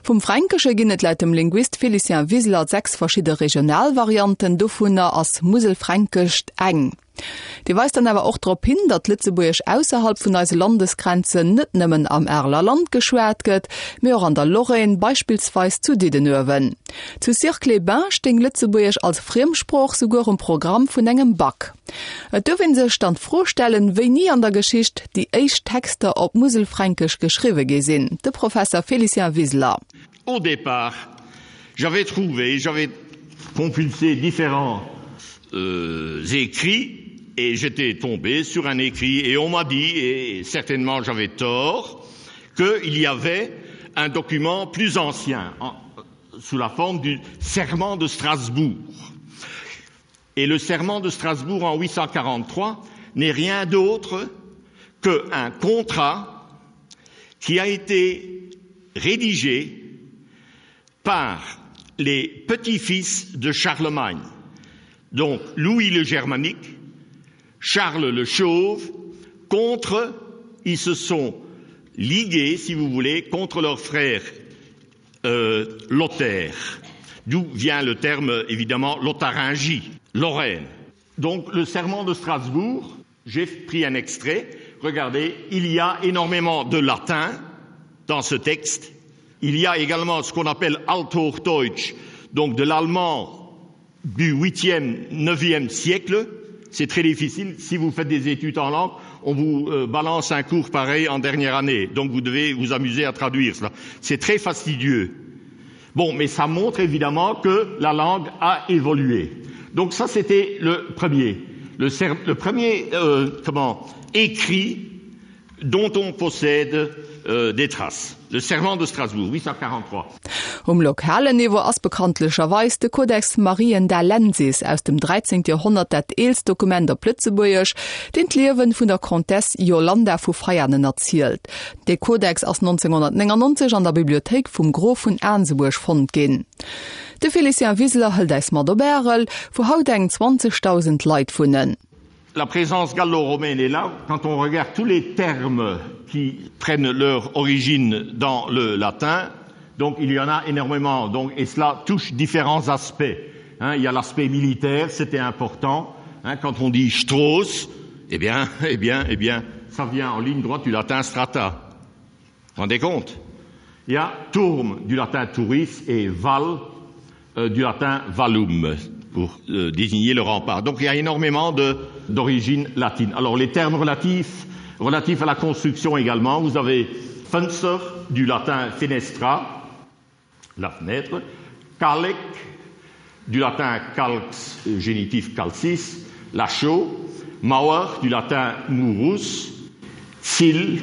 Vum Fränkesche ginn et laut dem Linguist Félicien Wiseler 6 verschidde Regionalvarianten, dovunner ass Muselfränkescht eng. Dee weist dann awer och drop hin, datt Lëtzebuergesch ausserhalb vun eise Landesgrenzen net nëmmen am Areler Land geschwat gëtt, mee och an der Lorraine, beispillsweis zu Diddenuewen. Zu Sierck-les-Bains stéing Lëtzebuergesch als Friemsprooch souguer um Programm vun engem Bac. Et duerf ee sech dann d'Fro stellen, wéini an der Geschicht déi éischt Texter op Muselfränkesch geschriwwe gi sinn. De Professer Félicien Wiseler. Au départ, j'avais trouvé, j'avais compulsé différents euh, écrits et j'étais tombé sur un écrit et on m'a dit et certainement j'avais tort qu'il y avait un document plus ancien en, sous la forme du serment de Strasbourg. Et le serment de Strasbourg en 843 n'est rien d'autre qu'un contrat qui a été rédigé par les petits-fils de Charlemagne, donc Louis le Germanique, Charles le Chauve, Contre, ils se sont ligués, si vous voulez, contre leur frère euh, Lothaire, d'où vient le terme évidemment Lotharingie, Lorraine. Donc le serment de Strasbourg, j'ai pris un extrait, regardez, il y a énormément de latin dans ce texte. Il y a également ce qu'on appelle Althochdeutsch, donc de l'allemand du 8e, 9e siècle. C'est très difficile. Si vous faites des études en langue, on vous euh, balance un cours pareil en dernière année. Donc vous devez vous amuser à traduire cela. C'est très fastidieux. Bon, mais ça montre évidemment que la langue a évolué. Donc ça, c'était le premier. Le, le premier euh, comment, écrit dont on possède euh, des traces. Le serment de Strasbourg, 843. Um lokalen Niveau ass bekanntlecherweis de Codex Mariendalensis aus dem 13. Joerhonnert dat eelst Dokument op Lëtzebuergesch, deen d'Liewen vun der Comtesse Yolanda vu Veianen erzielt. Dee Codex ass 1999 an der Bibliothéik vum Grof vun Aansebuerg fonnt ginn. De Félicien Wiseler hëlt äis mat op Ärel, wou haut eng 20.000 Leit wunnen. La présence gallo-romaine est là quand on regarde tous les termes qui prennent leur origine dans le latin donc il y en a énormément donc et cela touche différents aspects hein, il y a l'aspect militaire c'était important hein, quand on dit Strauss eh bien eh bien eh bien ça vient en ligne droite du latin strata rendez compte il y a tourme du latin touris et val euh, du latin valum pour euh, désigner le rempart. Donc il y a énormément d'origine latine. Alors les termes relatifs, relatifs à la construction également, vous avez fenster du latin fenestra, la fenêtre, calec du latin calx génitif calcis, la chaux, mauer du latin murus, cil,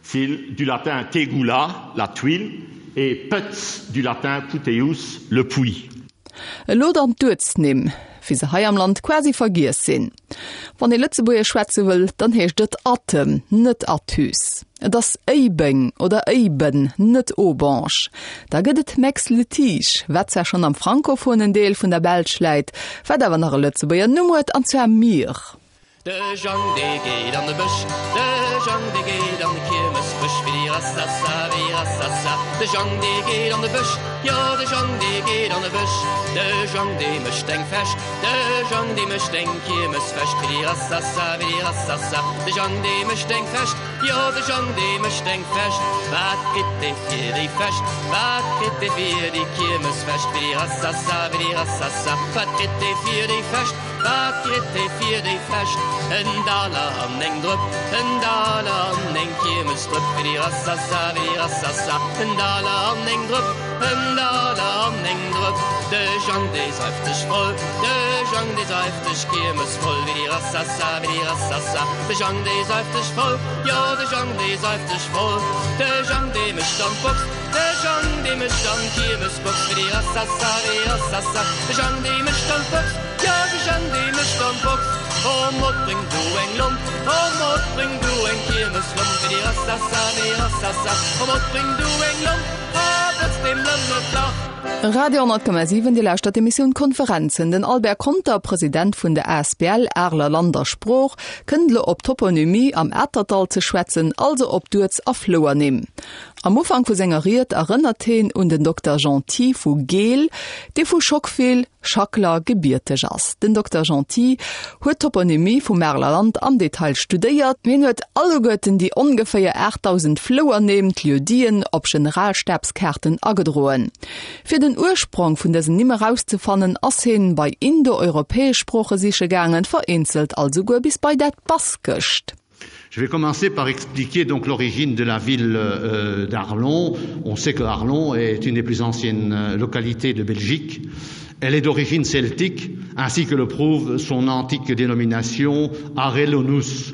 cil du latin tegula, la tuile, et putz du latin puteus, le puits. Elo dann d'Uertsnimm, wéi se hei am Land quasi vergiess sinn. Wann ee Lëtzebuergesch schwätze wëll, dann heescht et Attem, net Athus. Et ass Éibeng oder Éiben, net Aubange. Da gëtt et Meix-le-Tige, wat zwar schonn am frankophonen Deel vun der Belsch läit, wat awer nach e Lëtzebuerger Numm huet, an zwar Mire. De Jang dee geet an de Bësch, de Jang dee geet an de Kiermesbësch, Willi-rassassa, willi-rassassa. De Jang dee geet an de Bësch, jo de Jang dee geet an de Bësch. De Jang dee mécht eng Fäscht, de Jang dee mécht eng Kiermesfäscht, Willi-rassassa, willi-rassassa. De Jang dee mécht eng Fäscht, jo de Jang dee mécht eng Fäscht. Wat kritt dee fir déi Fäscht, wat kritt dee fir déi Kiermesfäscht, Willi-rassassa, willi-rassassa. Wat kritt dee fir déi Fäscht? Wat kritt ee fir déi Fescht? En Daler an eng Drëpp, en Daler an eng Kiermesdrëpp, Willi-rassassa, willi-rassassa. En Daler an eng Drëpp, en Daler an eng Drëpp. De Jang, dee seift sech voll, de Jang, dee seift sech kiermesvoll, Willi-rassassa, willi-rassassa. De Jang, dee seift sech voll, jo, de Jang, dee seift sech voll. De Jang, dee mécht an d'Box, de Jang, dee mécht an d'Kiermesbox, Willi-rassassa, willi-rassassa. De Jang, dee mécht an d'Box. Jo, de Jang dee mécht an d'Box. O Mod, bréng du eng Lomp, o Mod, bréng du eng Kiermeslomp, Willi-rassassa, willi-rassassa. O Mod, bréng du eng Lomp, a botz deem Lëmmel d'Lach. Radio 10,7, Dir lauschtert d'Emissioun Konferenzen. Den Albert Conter, President vun der asbl Areler Land a Sprooch, kënnt elo op d'Toponymie am Atertdall ze schwätzen, also op d'Uerts a Flouernimm. Am Ufank vu senger Ried erënnert heen un den Dokter Genty vu Geel, dee vu Schockfel, Schackler, gebierteg ass. Den Dokter Genty huet d'Toponymie vum Areler Land am Detail studéiert. Hien huet alleguerten déi ongeféier 8.000 Flouernimm, d'Lieu-diten, op Generalstabskaarten agedroen. Fir den Ursprong vun dësen Nimm erauszefannen, ass heen bei indoeuropäesch Sprooche siche gaangen, vereenzelt alt esouguer bis bei dat Baskescht. Je vais commencer par expliquer donc l'origine de la ville euh, d'Arlon. On sait que Arlon est une des plus anciennes euh, localités de Belgique. Elle est d'origine celtique, ainsi que le prouve son antique dénomination Arelonus.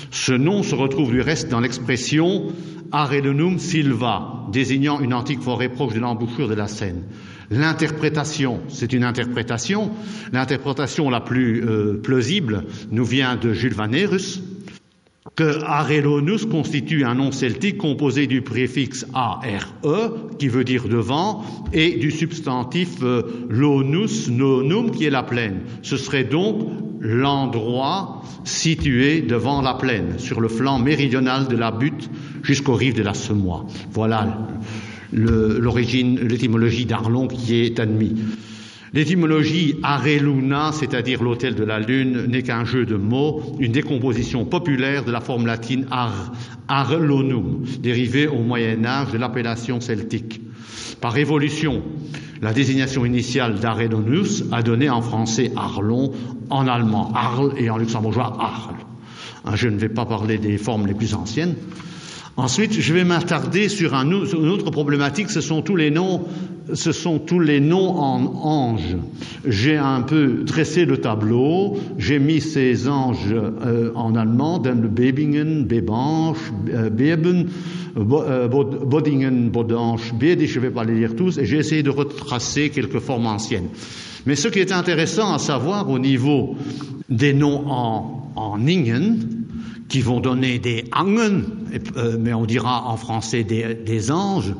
Ce nom se retrouve du reste dans l'expression Arelonum silva, désignant une antique forêt proche de l'embouchure de la Seine. L'interprétation, c'est une interprétation. L'interprétation la plus euh, plausible nous vient de Jules Vanerus, que Arelonus constitue un nom celtique composé du préfixe ARE, qui veut dire devant, et du substantif euh, lonus nonum, qui est la plaine. Ce serait donc l'endroit situé devant la plaine, sur le flanc méridional de la butte jusqu'aux rives de la Semois. Voilà l'origine, l'étymologie d'Arlon qui est admise. L'étymologie Areluna, c'est-à-dire l'hôtel de la lune, n'est qu'un jeu de mots, une décomposition populaire de la forme latine ar, Arlonum, dérivée au Moyen Âge de l'appellation celtique. Par évolution, la désignation initiale d'Arelonus a donné en français Arlon, en allemand Arl et en luxembourgeois Arl. Je ne vais pas parler des formes les plus anciennes. Ensuite, je vais m'attarder sur un, une autre problématique, ce sont tous les noms, ce sont tous les noms en anges. J'ai un peu dressé le tableau, j'ai mis ces anges euh, en allemand, dans le Bebingen, Bebange, euh, Beben, euh, Bodingen, Bodange, Bede, je ne vais pas les lire tous, et j'ai essayé de retracer quelques formes anciennes. Mais ce qui est intéressant à savoir au niveau des noms en, en Ingen, qui vont donner des Angen, euh, mais on dira en français des, des anges,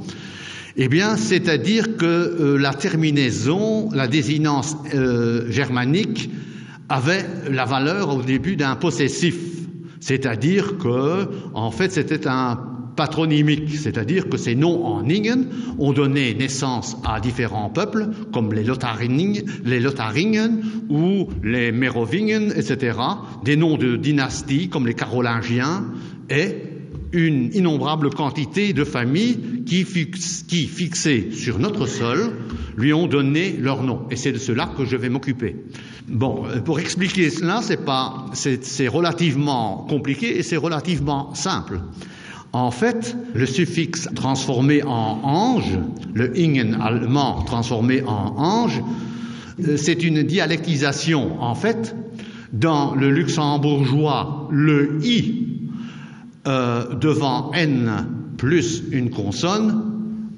eh bien, c'est-à-dire que euh, la terminaison, la désinence euh, germanique avait la valeur au début d'un possessif, c'est-à-dire que, en fait, c'était un patronymique, c'est-à-dire que ces noms en Ingen ont donné naissance à différents peuples, comme les Lotharingen, les Lotharingen ou les Mérovingen, etc., des noms de dynasties comme les Carolingiens et une innombrable quantité de familles qui, fix, qui fixées sur notre sol, lui ont donné leur nom. Et c'est de cela que je vais m'occuper. Bon, euh, pour expliquer cela, c'est relativement compliqué et c'est relativement simple. En fait, le suffixe transformé en ange, le ingen allemand transformé en ange, euh, c'est une dialectisation. En fait, dans le luxembourgeois, le i euh, devant n plus une consonne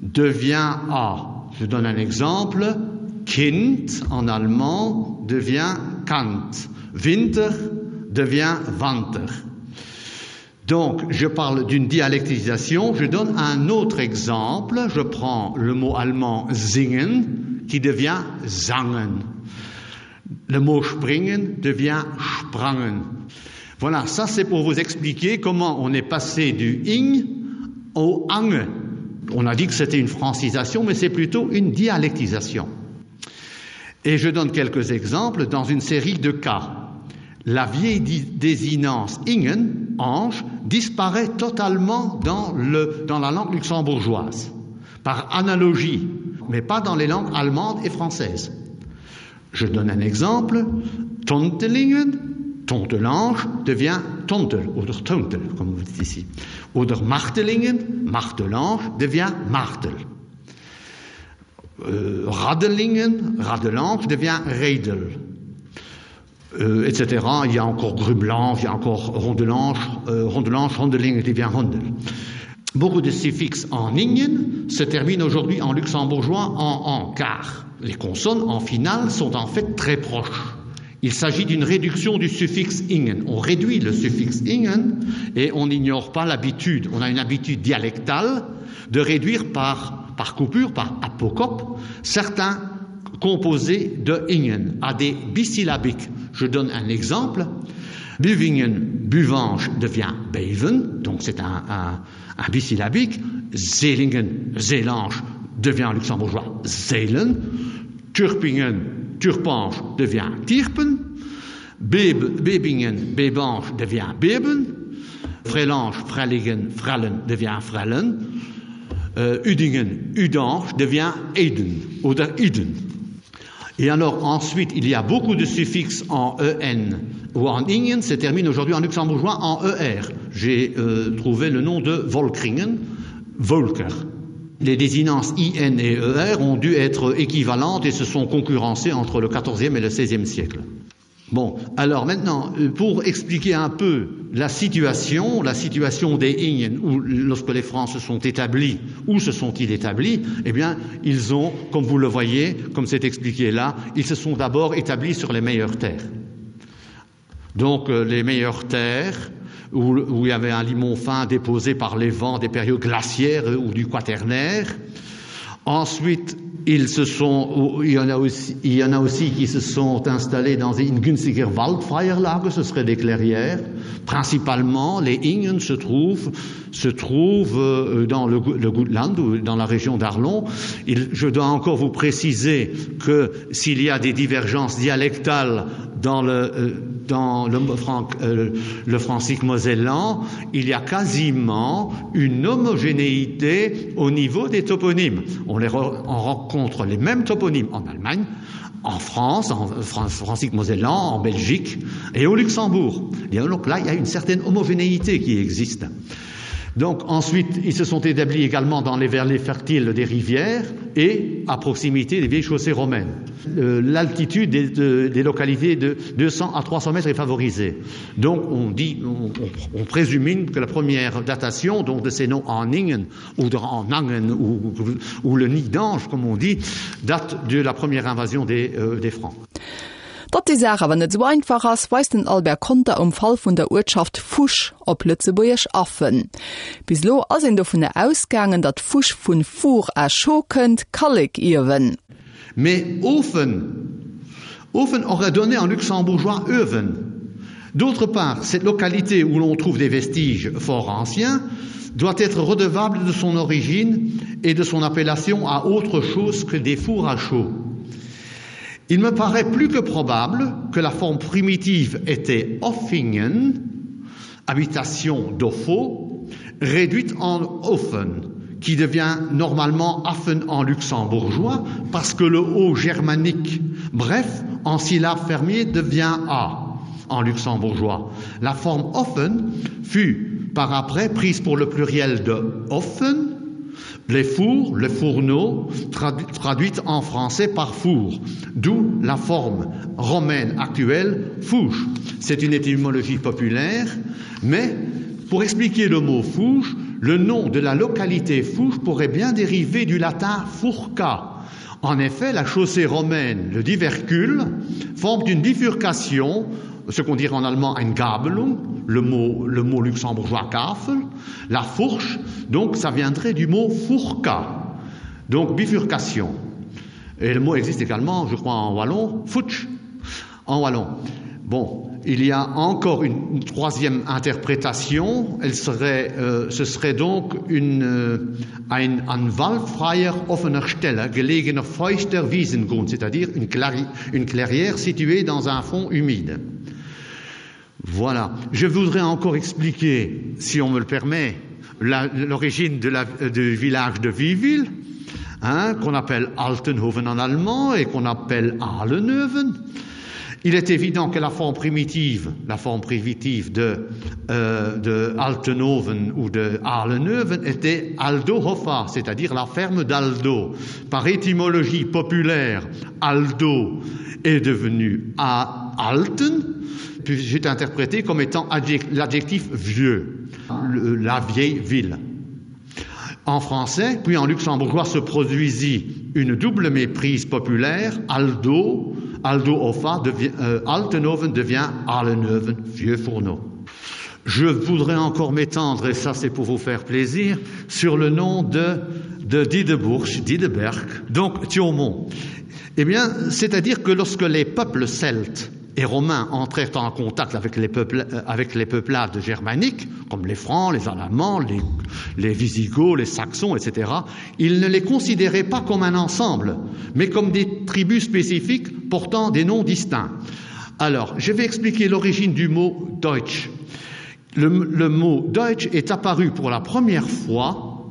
devient a. Je donne un exemple. Kind en allemand devient Kant. Winter devient Wanter. Donc, je parle d'une dialectisation. Je donne un autre exemple. Je prends le mot allemand singen qui devient zangen. Le mot springen devient sprangen. Voilà, ça c'est pour vous expliquer comment on est passé du ing au ange. On a dit que c'était une francisation, mais c'est plutôt une dialectisation. Et je donne quelques exemples dans une série de cas. La vieille désinence ingen, ange, disparaît totalement dans, le, dans la langue luxembourgeoise, par analogie, mais pas dans les langues allemandes et françaises. Je donne un exemple, Tontelingen, Tontelange devient Tontel oder Tontel, comme vous dites ici. Oder Martelingen, Martelange devient Martel. Euh, Radelingen, Radelange devient Redel. Euh, etc. Il y a encore Grublange, il y a encore Rondelange, euh, Rondelange, Rondeling devient Rondel. Beaucoup de suffixes en ingen se terminent aujourd'hui en luxembourgeois en en car les consonnes en finale sont en fait très proches. Il s'agit d'une réduction du suffixe ingen. On réduit le suffixe ingen et on n'ignore pas l'habitude. On a une habitude dialectale de réduire par, par coupure, par apocope, certains composés de ingen à des bisyllabiques. Je donne un exemple. Buvingen, buvange devient beven, donc c'est un, un, un bisyllabique. Zelingen, zelange devient luxembourgeois zelen. Turpingen, turpange devient tirpen. Beb, Bebingen, bebange devient beben. Frelange, frelligen, frellen devient frellen. Euh, Udingen, udange devient eden oder iden. Et alors ensuite, il y a beaucoup de suffixes en en ou en ingen, se termine aujourd'hui en luxembourgeois en er. J'ai euh, trouvé le nom de Volkringen, Volker. Les désinences IN et ER ont dû être équivalentes et se sont concurrencées entre le XIVe et le XVIe siècle. Bon, alors maintenant, euh, pour expliquer un peu la situation, la situation des Ingen, où lorsque les Francs se sont établis, où se sont-ils établis Eh bien, ils ont, comme vous le voyez, comme c'est expliqué là, ils se sont d'abord établis sur les meilleures terres. Donc, euh, les meilleures terres, où, où il y avait un limon fin déposé par les vents des périodes glaciaires ou du quaternaire. Ensuite, ils se sont, il y en a aussi, il y en a aussi qui se sont installés dans une günstiger Waldfreierlage, ce serait des clairières. Principalement, les Ingen se trouvent, se trouvent euh, dans le, le Gutland ou dans la région d'Arlon. Il, je dois encore vous préciser que s'il y a des divergences dialectales dans le, euh, dans le, franc, euh, le francique mosellan, il y a quasiment une homogénéité au niveau des toponymes. On, les re, on rencontre les mêmes toponymes en Allemagne, en France, en francique mosellan, en Belgique et au Luxembourg. Et donc là, il y a une certaine homogénéité qui existe. Donc ensuite, ils se sont établis également dans les verlets fertiles des rivières et à proximité des vieilles chaussées romaines. Euh, L'altitude des, de, des localités de 200 à 300 mètres est favorisée. Donc on dit on, on, on présumine que la première datation donc de ces noms en Ingen ou de, en Angen ou, ou le nid d'ange comme on dit date de la première invasion des, euh, des Francs. Datt déi Saach awer net esou einfach ass, weist den Albert Conter um Fall vun der Uertschaft Fusch, op Lëtzebuergesch Affen. Bis elo ass een dovunner ausgaangen, datt Fusch vun four à chaux kënnt, Kallekiewen. Mais Ofen Ofen aurait donné en luxembourgeois Öwen. D'autre part, cette localité où l'on trouve des vestiges fort anciens doit être redevable de son origine et de son appellation à autre chose que des fours à chaud. Il me paraît plus que probable que la forme primitive était Offingen, habitation d'Offo, réduite en Offen, qui devient normalement Affen en luxembourgeois parce que le O germanique, bref, en syllabe fermier devient A en luxembourgeois. La forme Offen fut par après prise pour le pluriel de Offen, les fours, le fourneau, tradu traduite en français par four, d'où la forme romaine actuelle fouche. C'est une étymologie populaire, mais pour expliquer le mot fouche, le nom de la localité fouche pourrait bien dériver du latin fourca. En effet, la chaussée romaine, le divercule, forme une bifurcation, ce qu'on dirait en allemand ein Gabelung, le mot, le mot luxembourgeois Gafel, la fourche, donc ça viendrait du mot fourca, donc bifurcation. Et le mot existe également, je crois, en wallon, futsch, en wallon. Bon, il y a encore une, une troisième interprétation, elle serait, euh, ce serait donc une euh, ein an waldfreier offener Stelle gelegener feuchter Wiesengrund, c'est-à-dire une, une clairière située dans un fond humide. Voilà. Je voudrais encore expliquer, si on me le permet, l'origine du village de Viville, hein, qu'on appelle Altenhoven en allemand et qu'on appelle Ahlenhoven. Il est évident que la forme primitive, la forme primitive de, euh, de Altenhoven ou de Ahlenhoven était Aldohofa, c'est-à-dire la ferme d'Aldo. Par étymologie populaire, Aldo est devenu à Alten, puis j'ai interprété comme étant l'adjectif vieux, le, la vieille ville. En français, puis en luxembourgeois se produisit une double méprise populaire, Aldo, Aldo Hoffa devient, euh, Altenhoven devient Ahlenhoven, vieux fourneau. Je voudrais encore m'étendre, et ça c'est pour vous faire plaisir, sur le nom de, de Dideburg, Dideberg, donc Thiaumont. Eh bien, c'est-à-dire que lorsque les peuples celtes et romains entrèrent en contact avec les, peuples, euh, avec les peuplades germaniques, comme les Francs, les Alamans, les, les Visigoths, les Saxons, etc., ils ne les considéraient pas comme un ensemble, mais comme des tribus spécifiques portant des noms distincts. Alors, je vais expliquer l'origine du mot Deutsch. Le, le mot Deutsch est apparu pour la première fois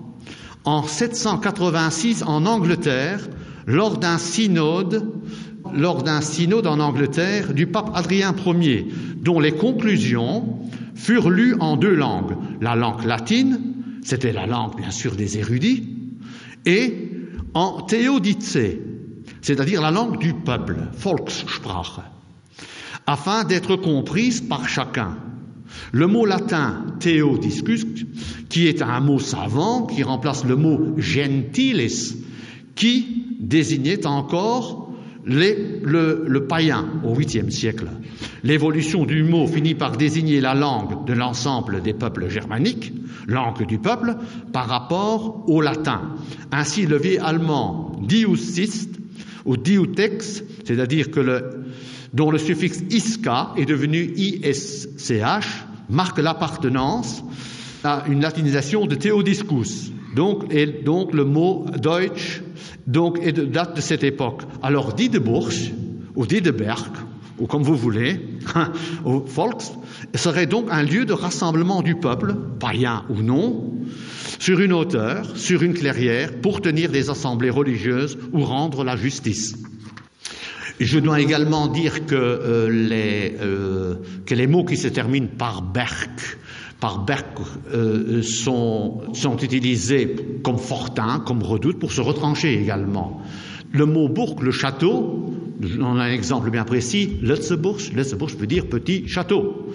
en 786 en Angleterre lors d'un synode lors d'un synode en Angleterre du pape Adrien Ier, dont les conclusions furent lues en deux langues, la langue latine, c'était la langue bien sûr des érudits, et en théodicée, c'est-à-dire la langue du peuple, Volkssprache, afin d'être comprise par chacun. Le mot latin théodiscus, qui est un mot savant qui remplace le mot gentilis, qui désignait encore. les, le, le païen au 8e siècle. L'évolution du mot finit par désigner la langue de l'ensemble des peuples germaniques, langue du peuple, par rapport au latin. Ainsi le vieil allemand diusist ou diutex, c'est-à-dire que le, dont le suffixe isca est devenu isch, marque l'appartenance à une latinisation de Théodiscus. Donc, et donc le mot Deutsch donc, est de date de cette époque. Alors Diedeburg ou Diedeberg ou comme vous voulez, au Volks, serait donc un lieu de rassemblement du peuple, païen ou non, sur une hauteur, sur une clairière, pour tenir des assemblées religieuses ou rendre la justice. Je dois également dire que, euh, les, euh, que les mots qui se terminent par Berg, par Berg euh, sont, sont utilisés comme fortin, comme redoute pour se retrancher également. Le mot bourg, le château, on a un exemple bien précis, Lutzeburg, Lutzeburg veut dire petit château.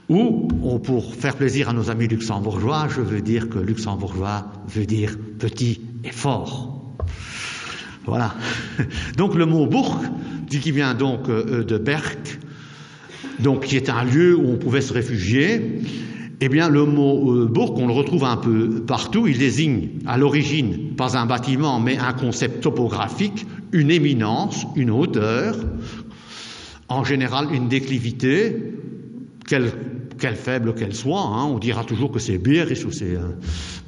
Ou, pour faire plaisir à nos amis luxembourgeois, je veux dire que luxembourgeois veut dire petit et fort. Voilà. Donc le mot bourg, dit qui vient donc euh, de Berck, donc qui est un lieu où on pouvait se réfugier, eh bien le mot euh, bourg, on le retrouve un peu partout, il désigne à l'origine pas un bâtiment mais un concept topographique, une éminence, une hauteur, en général une déclivité, quelle quelle faible qu'elle soit, hein, on dira toujours que c'est Berisch ou c'est euh,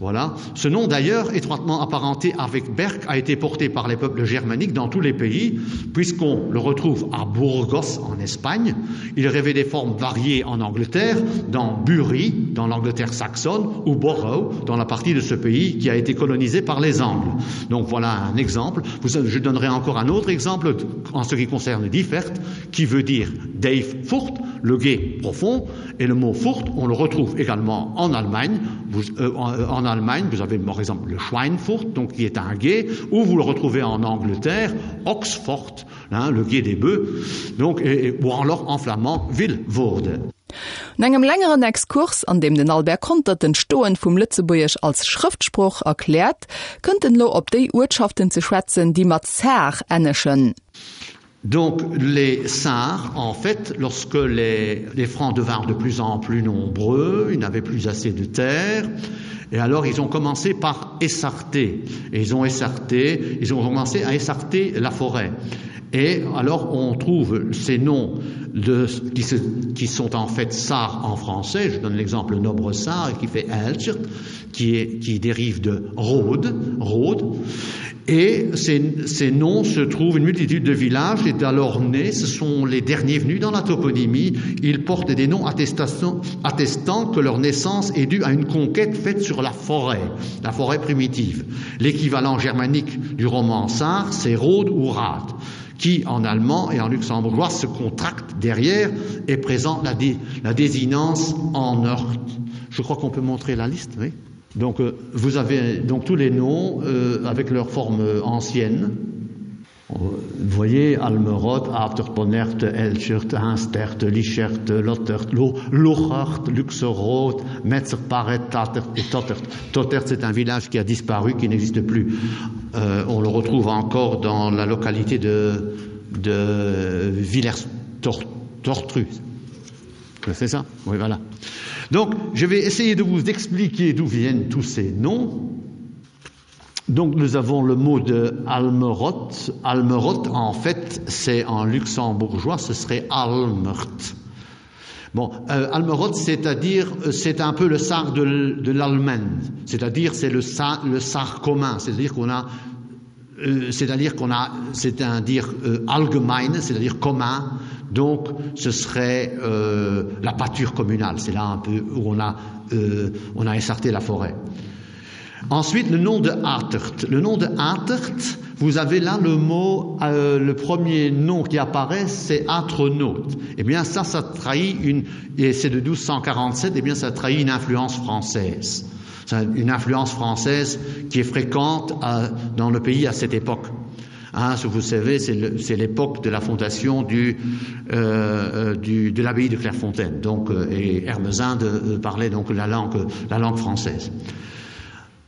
voilà. Ce nom d'ailleurs étroitement apparenté avec Berck a été porté par les peuples germaniques dans tous les pays, puisqu'on le retrouve à Burgos en Espagne, il rêvait des formes variées en Angleterre, dans Bury, dans l'Angleterre saxonne ou Borough, dans la partie de ce pays qui a été colonisée par les Angles. Donc voilà un exemple. Vous, je donnerai encore un autre exemple en ce qui concerne Differt, qui veut dire Dave Furt, le guet profond et le mot Furt, on le retrouve également en Allemagne. Vous, euh, en, euh, en Allemagne, vous avez par exemple le Schweinfurt, donc qui est un guet, ou vous le retrouvez en Angleterre, Oxford, hein, le guet des bœufs, donc, et, et, ou alors en flamand Villevoorde. No engem längeren Exkurs, an deem den Albert Conter d'Entstoen vum Lëtzebuergesch als Schrëftsprooch erkläert, kënnt en elo op déi Uertschaften ze schwätzen, déi mat Saar ennegen. Donc les Sars, en fait, lorsque les, les Francs devinrent de plus en plus nombreux, ils n'avaient plus assez de terre, et alors ils ont commencé par essarter. Et ils ont essarté, ils ont commencé à essarter la forêt. Et alors on trouve ces noms de, qui, se, qui sont en fait Sar en français, je donne l'exemple Nobre Sar qui fait Elchert, qui, est, qui dérive de Rhodes, Rhodes. Et ces, ces noms se trouvent une multitude de villages et alors nés, ce sont les derniers venus dans la toponymie, ils portent des noms attestant que leur naissance est due à une conquête faite sur la forêt, la forêt primitive. L'équivalent germanique du roman Sar, c'est Rhodes ou Rad qui en allemand et en luxembourgeois se contracte derrière et présente la, dé, la désinence en heurte. Je crois qu'on peut montrer la liste, oui. Donc euh, vous avez donc tous les noms euh, avec leur forme euh, ancienne. Euh, vous voyez Almeroth, Afterponert, Elchert, Instert, Lichert, Lottert, Lochert, Luxeroth, Metzerparet, Tatert et Tottert. Tottert, c'est un village qui a disparu, qui n'existe plus. Euh, on le retrouve encore dans la localité de, de Villers-Tortru. C'est ça Oui, voilà. Donc, je vais essayer de vous expliquer d'où viennent tous ces noms. Donc nous avons le mot de Almeroth. Almeroth, en fait, c'est en luxembourgeois, ce serait Almert. Bon, euh, Almeroth, c'est-à-dire euh, c'est un peu le sar de, de l'Allemagne, c'est-à-dire c'est le, sa, le sar commun, c'est-à-dire qu'on a euh, c'est-à-dire qu'on a c'est un dire euh, allgemein, c'est-à-dire commun, donc ce serait euh, la pâture communale, c'est là un peu où on a, euh, on a essarté la forêt. Ensuite, le nom de Atert. Le nom de Atert, vous avez là le mot, euh, le premier nom qui apparaît, c'est Atronaute. Eh bien, ça, ça trahit une, et c'est de 1247, eh bien, ça trahit une influence française. C'est une influence française qui est fréquente à, dans le pays à cette époque. Hein, ce vous savez, c'est l'époque de la fondation du, euh, euh, du, de l'abbaye de Clairefontaine. Donc, euh, et Hermesinde euh, parlait donc la langue, la langue française.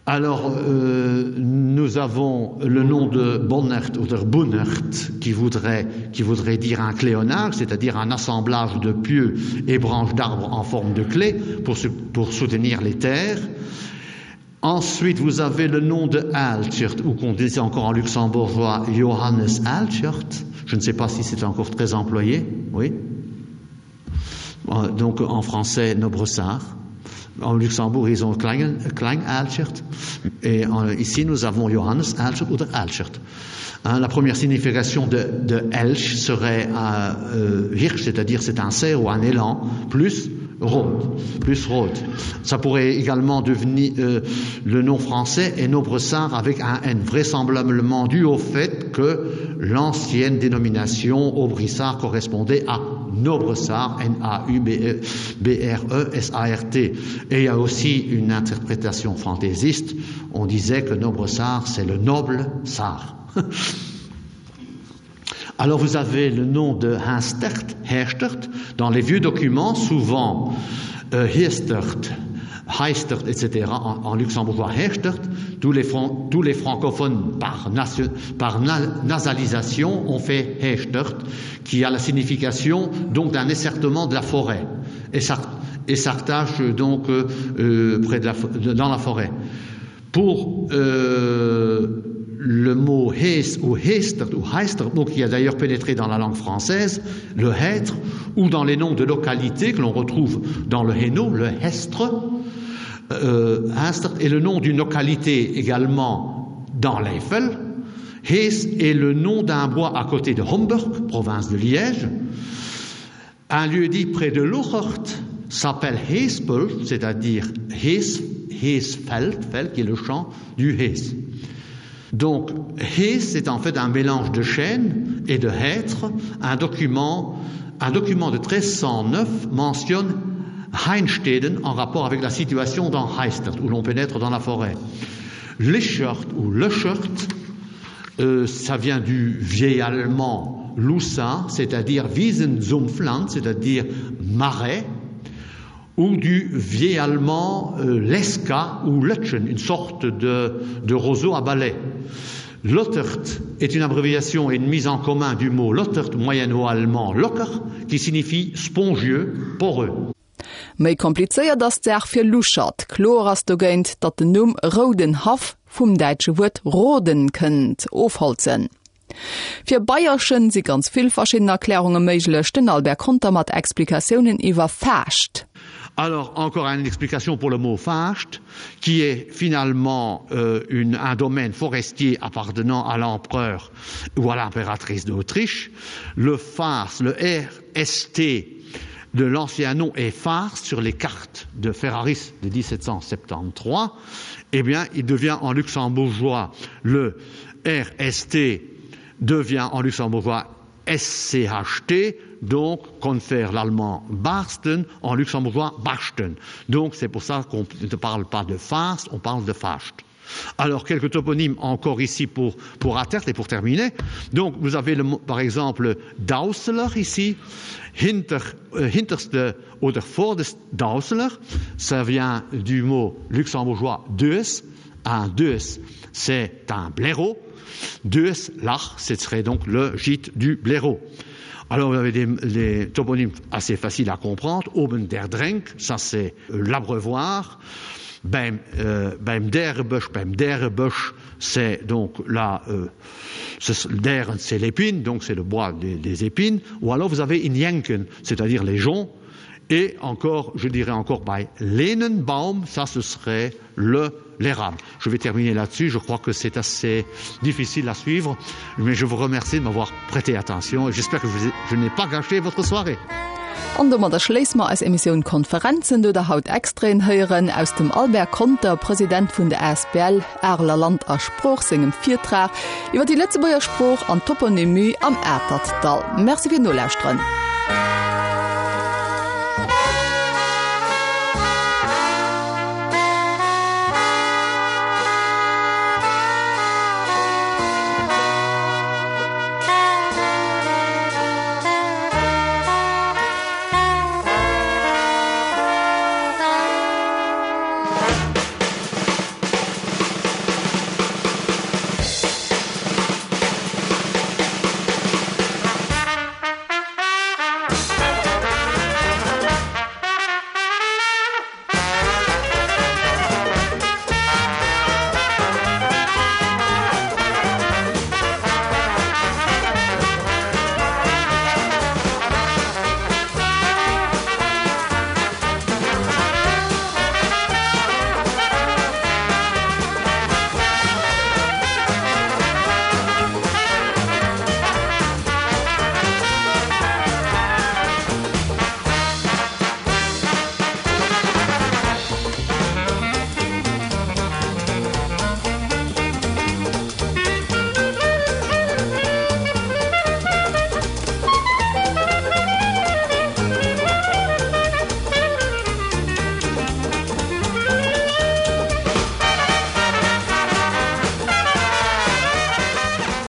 Alors euh, nous avons le nom de Bonnert ou de Bunnert qui voudrait, qui voudrait dire un cléonage, c'est-à-dire un assemblage de pieux et branches d'arbres en forme de clé pour, pour soutenir les terres. Ensuite, vous avez le nom de Altschert ou qu'on disait encore en luxembourgeois Johannes Altschert. Je ne sais pas si c'est encore très employé, oui. Euh, donc en français Nobressart. En Luxembourg, ils ont Klein, Klein Alschert. Et en, ici, nous avons Johannes Alschert oder Alschert. Hein, la première signification de, de Elch serait un euh, Hirsch, c'est-à-dire c'est un cerf ou un élan, plus Rhodes, plus Rhodes. Ça pourrait également devenir euh, le nom français et Nobressart avec un N, vraisemblablement dû au fait que l'ancienne dénomination Aubrissart correspondait à Nobressart, N-A-U-B-R-E-S-A-R-T. Et il y a aussi une interprétation fantaisiste. On disait que Nobressart, c'est le noble Sar. Alors vous avez le nom de Hinstert, Herstert, dans les vieux documents, souvent euh, Hestert, Heistert, etc., en, en luxembourgeois Herstert, tous les, fran tous les francophones par, par na nasalisation ont fait Hechtert, qui a la signification donc d'un essertement de la forêt et s'artache donc euh, euh, près de la, de, dans la forêt. Pour euh, le mot Hees ou Hester ou Heister, donc qui a d'ailleurs pénétré dans la langue française, le hêtre, ou dans les noms de localités que l'on retrouve dans le Hainaut, le Hestre, euh, Hester est le nom d'une localité également dans l'Eiffel. Hees est le nom d'un bois à côté de Homburg, province de Liège. Un lieu dit près de Lochert s'appelle Heespel, c'est-à-dire Hees, Heesfeld, Feld, qui est le champ du Hees. Donc Hees, c'est en fait un mélange de chêne et de hêtre. Un document, un document de 1309 mentionne Heinsteden en rapport avec la situation dans Heistert, où l'on pénètre dans la forêt. Lichert ou Lechert, euh, ça vient du vieil allemand Lussin, c'est-à-dire Wiesensumpfland, c'est-à-dire marais, ou du vieil allemand euh, Leska ou Lötschen, une sorte de, de roseau à balai. Lottert est une abréviation et une mise en commun du mot Lottert moyenno-allemand locker, qui signifie spongieux, poreux. Méi komplizéiert ass d'Saach fir Luchert. Kloer ass dogéint, datt den Numm Roudenhaff vum däitsche Wuert roden kënnt, ofholzen. Fir Beierchen si ganz vill verschidden Erklärunge méiglech. Den Albert Conter mat Explikatiounen iwwer Faascht. Alors encore une explication pour le mot Faascht, qui est finalement euh, une, un domaine forestier appartenant à l'empereur ou à l'impératrice d'Autriche. Le Fars, le RST de l'ancien nom est Fars sur les cartes de Ferraris de 1773. Eh bien, il devient en luxembourgeois le RST devient en luxembourgeois SCHT, donc confère l'allemand Barsten en luxembourgeois Barsten. Donc c'est pour ça qu'on ne parle pas de Fast, on parle de Fast. Alors quelques toponymes encore ici pour, pour Atert et pour terminer. Donc vous avez le, par exemple Dausler ici, Hinter, euh, Hinterste oder Vordest Dausler, ça vient du mot luxembourgeois Deus, un Deus c'est un blaireau, Deus lach, ce serait donc le gîte du blaireau. Alors vous avez des, des toponymes assez faciles à comprendre, Oben der Drenk, ça c'est l'abreuvoir, beim, euh, beim Derbusch, beim Derbusch, c'est donc là euh, der c'est l'épine, donc c'est le bois des, des épines, ou alors vous avez Injenken, c'est-à-dire les joncs, et encore, je dirais encore bei Lenenbaum, ça ce serait le l'érable. Je vais terminer là-dessus, je crois que c'est assez difficile à suivre, mais je vous remercie de m'avoir prêté attention et j'espère que je, je n'ai pas gâché votre soirée. An domadder schléisse mer eis Emissioun Konferenzen, do der haut Extraiten héieren aus dem Albert Conter, President vun der asbl Areler Land a Sprooch, sengem Virtrag iwwer déi Lëtzebuerger Sprooch an Toponymie am Atertdall. Merci fir d'Nolauschteren.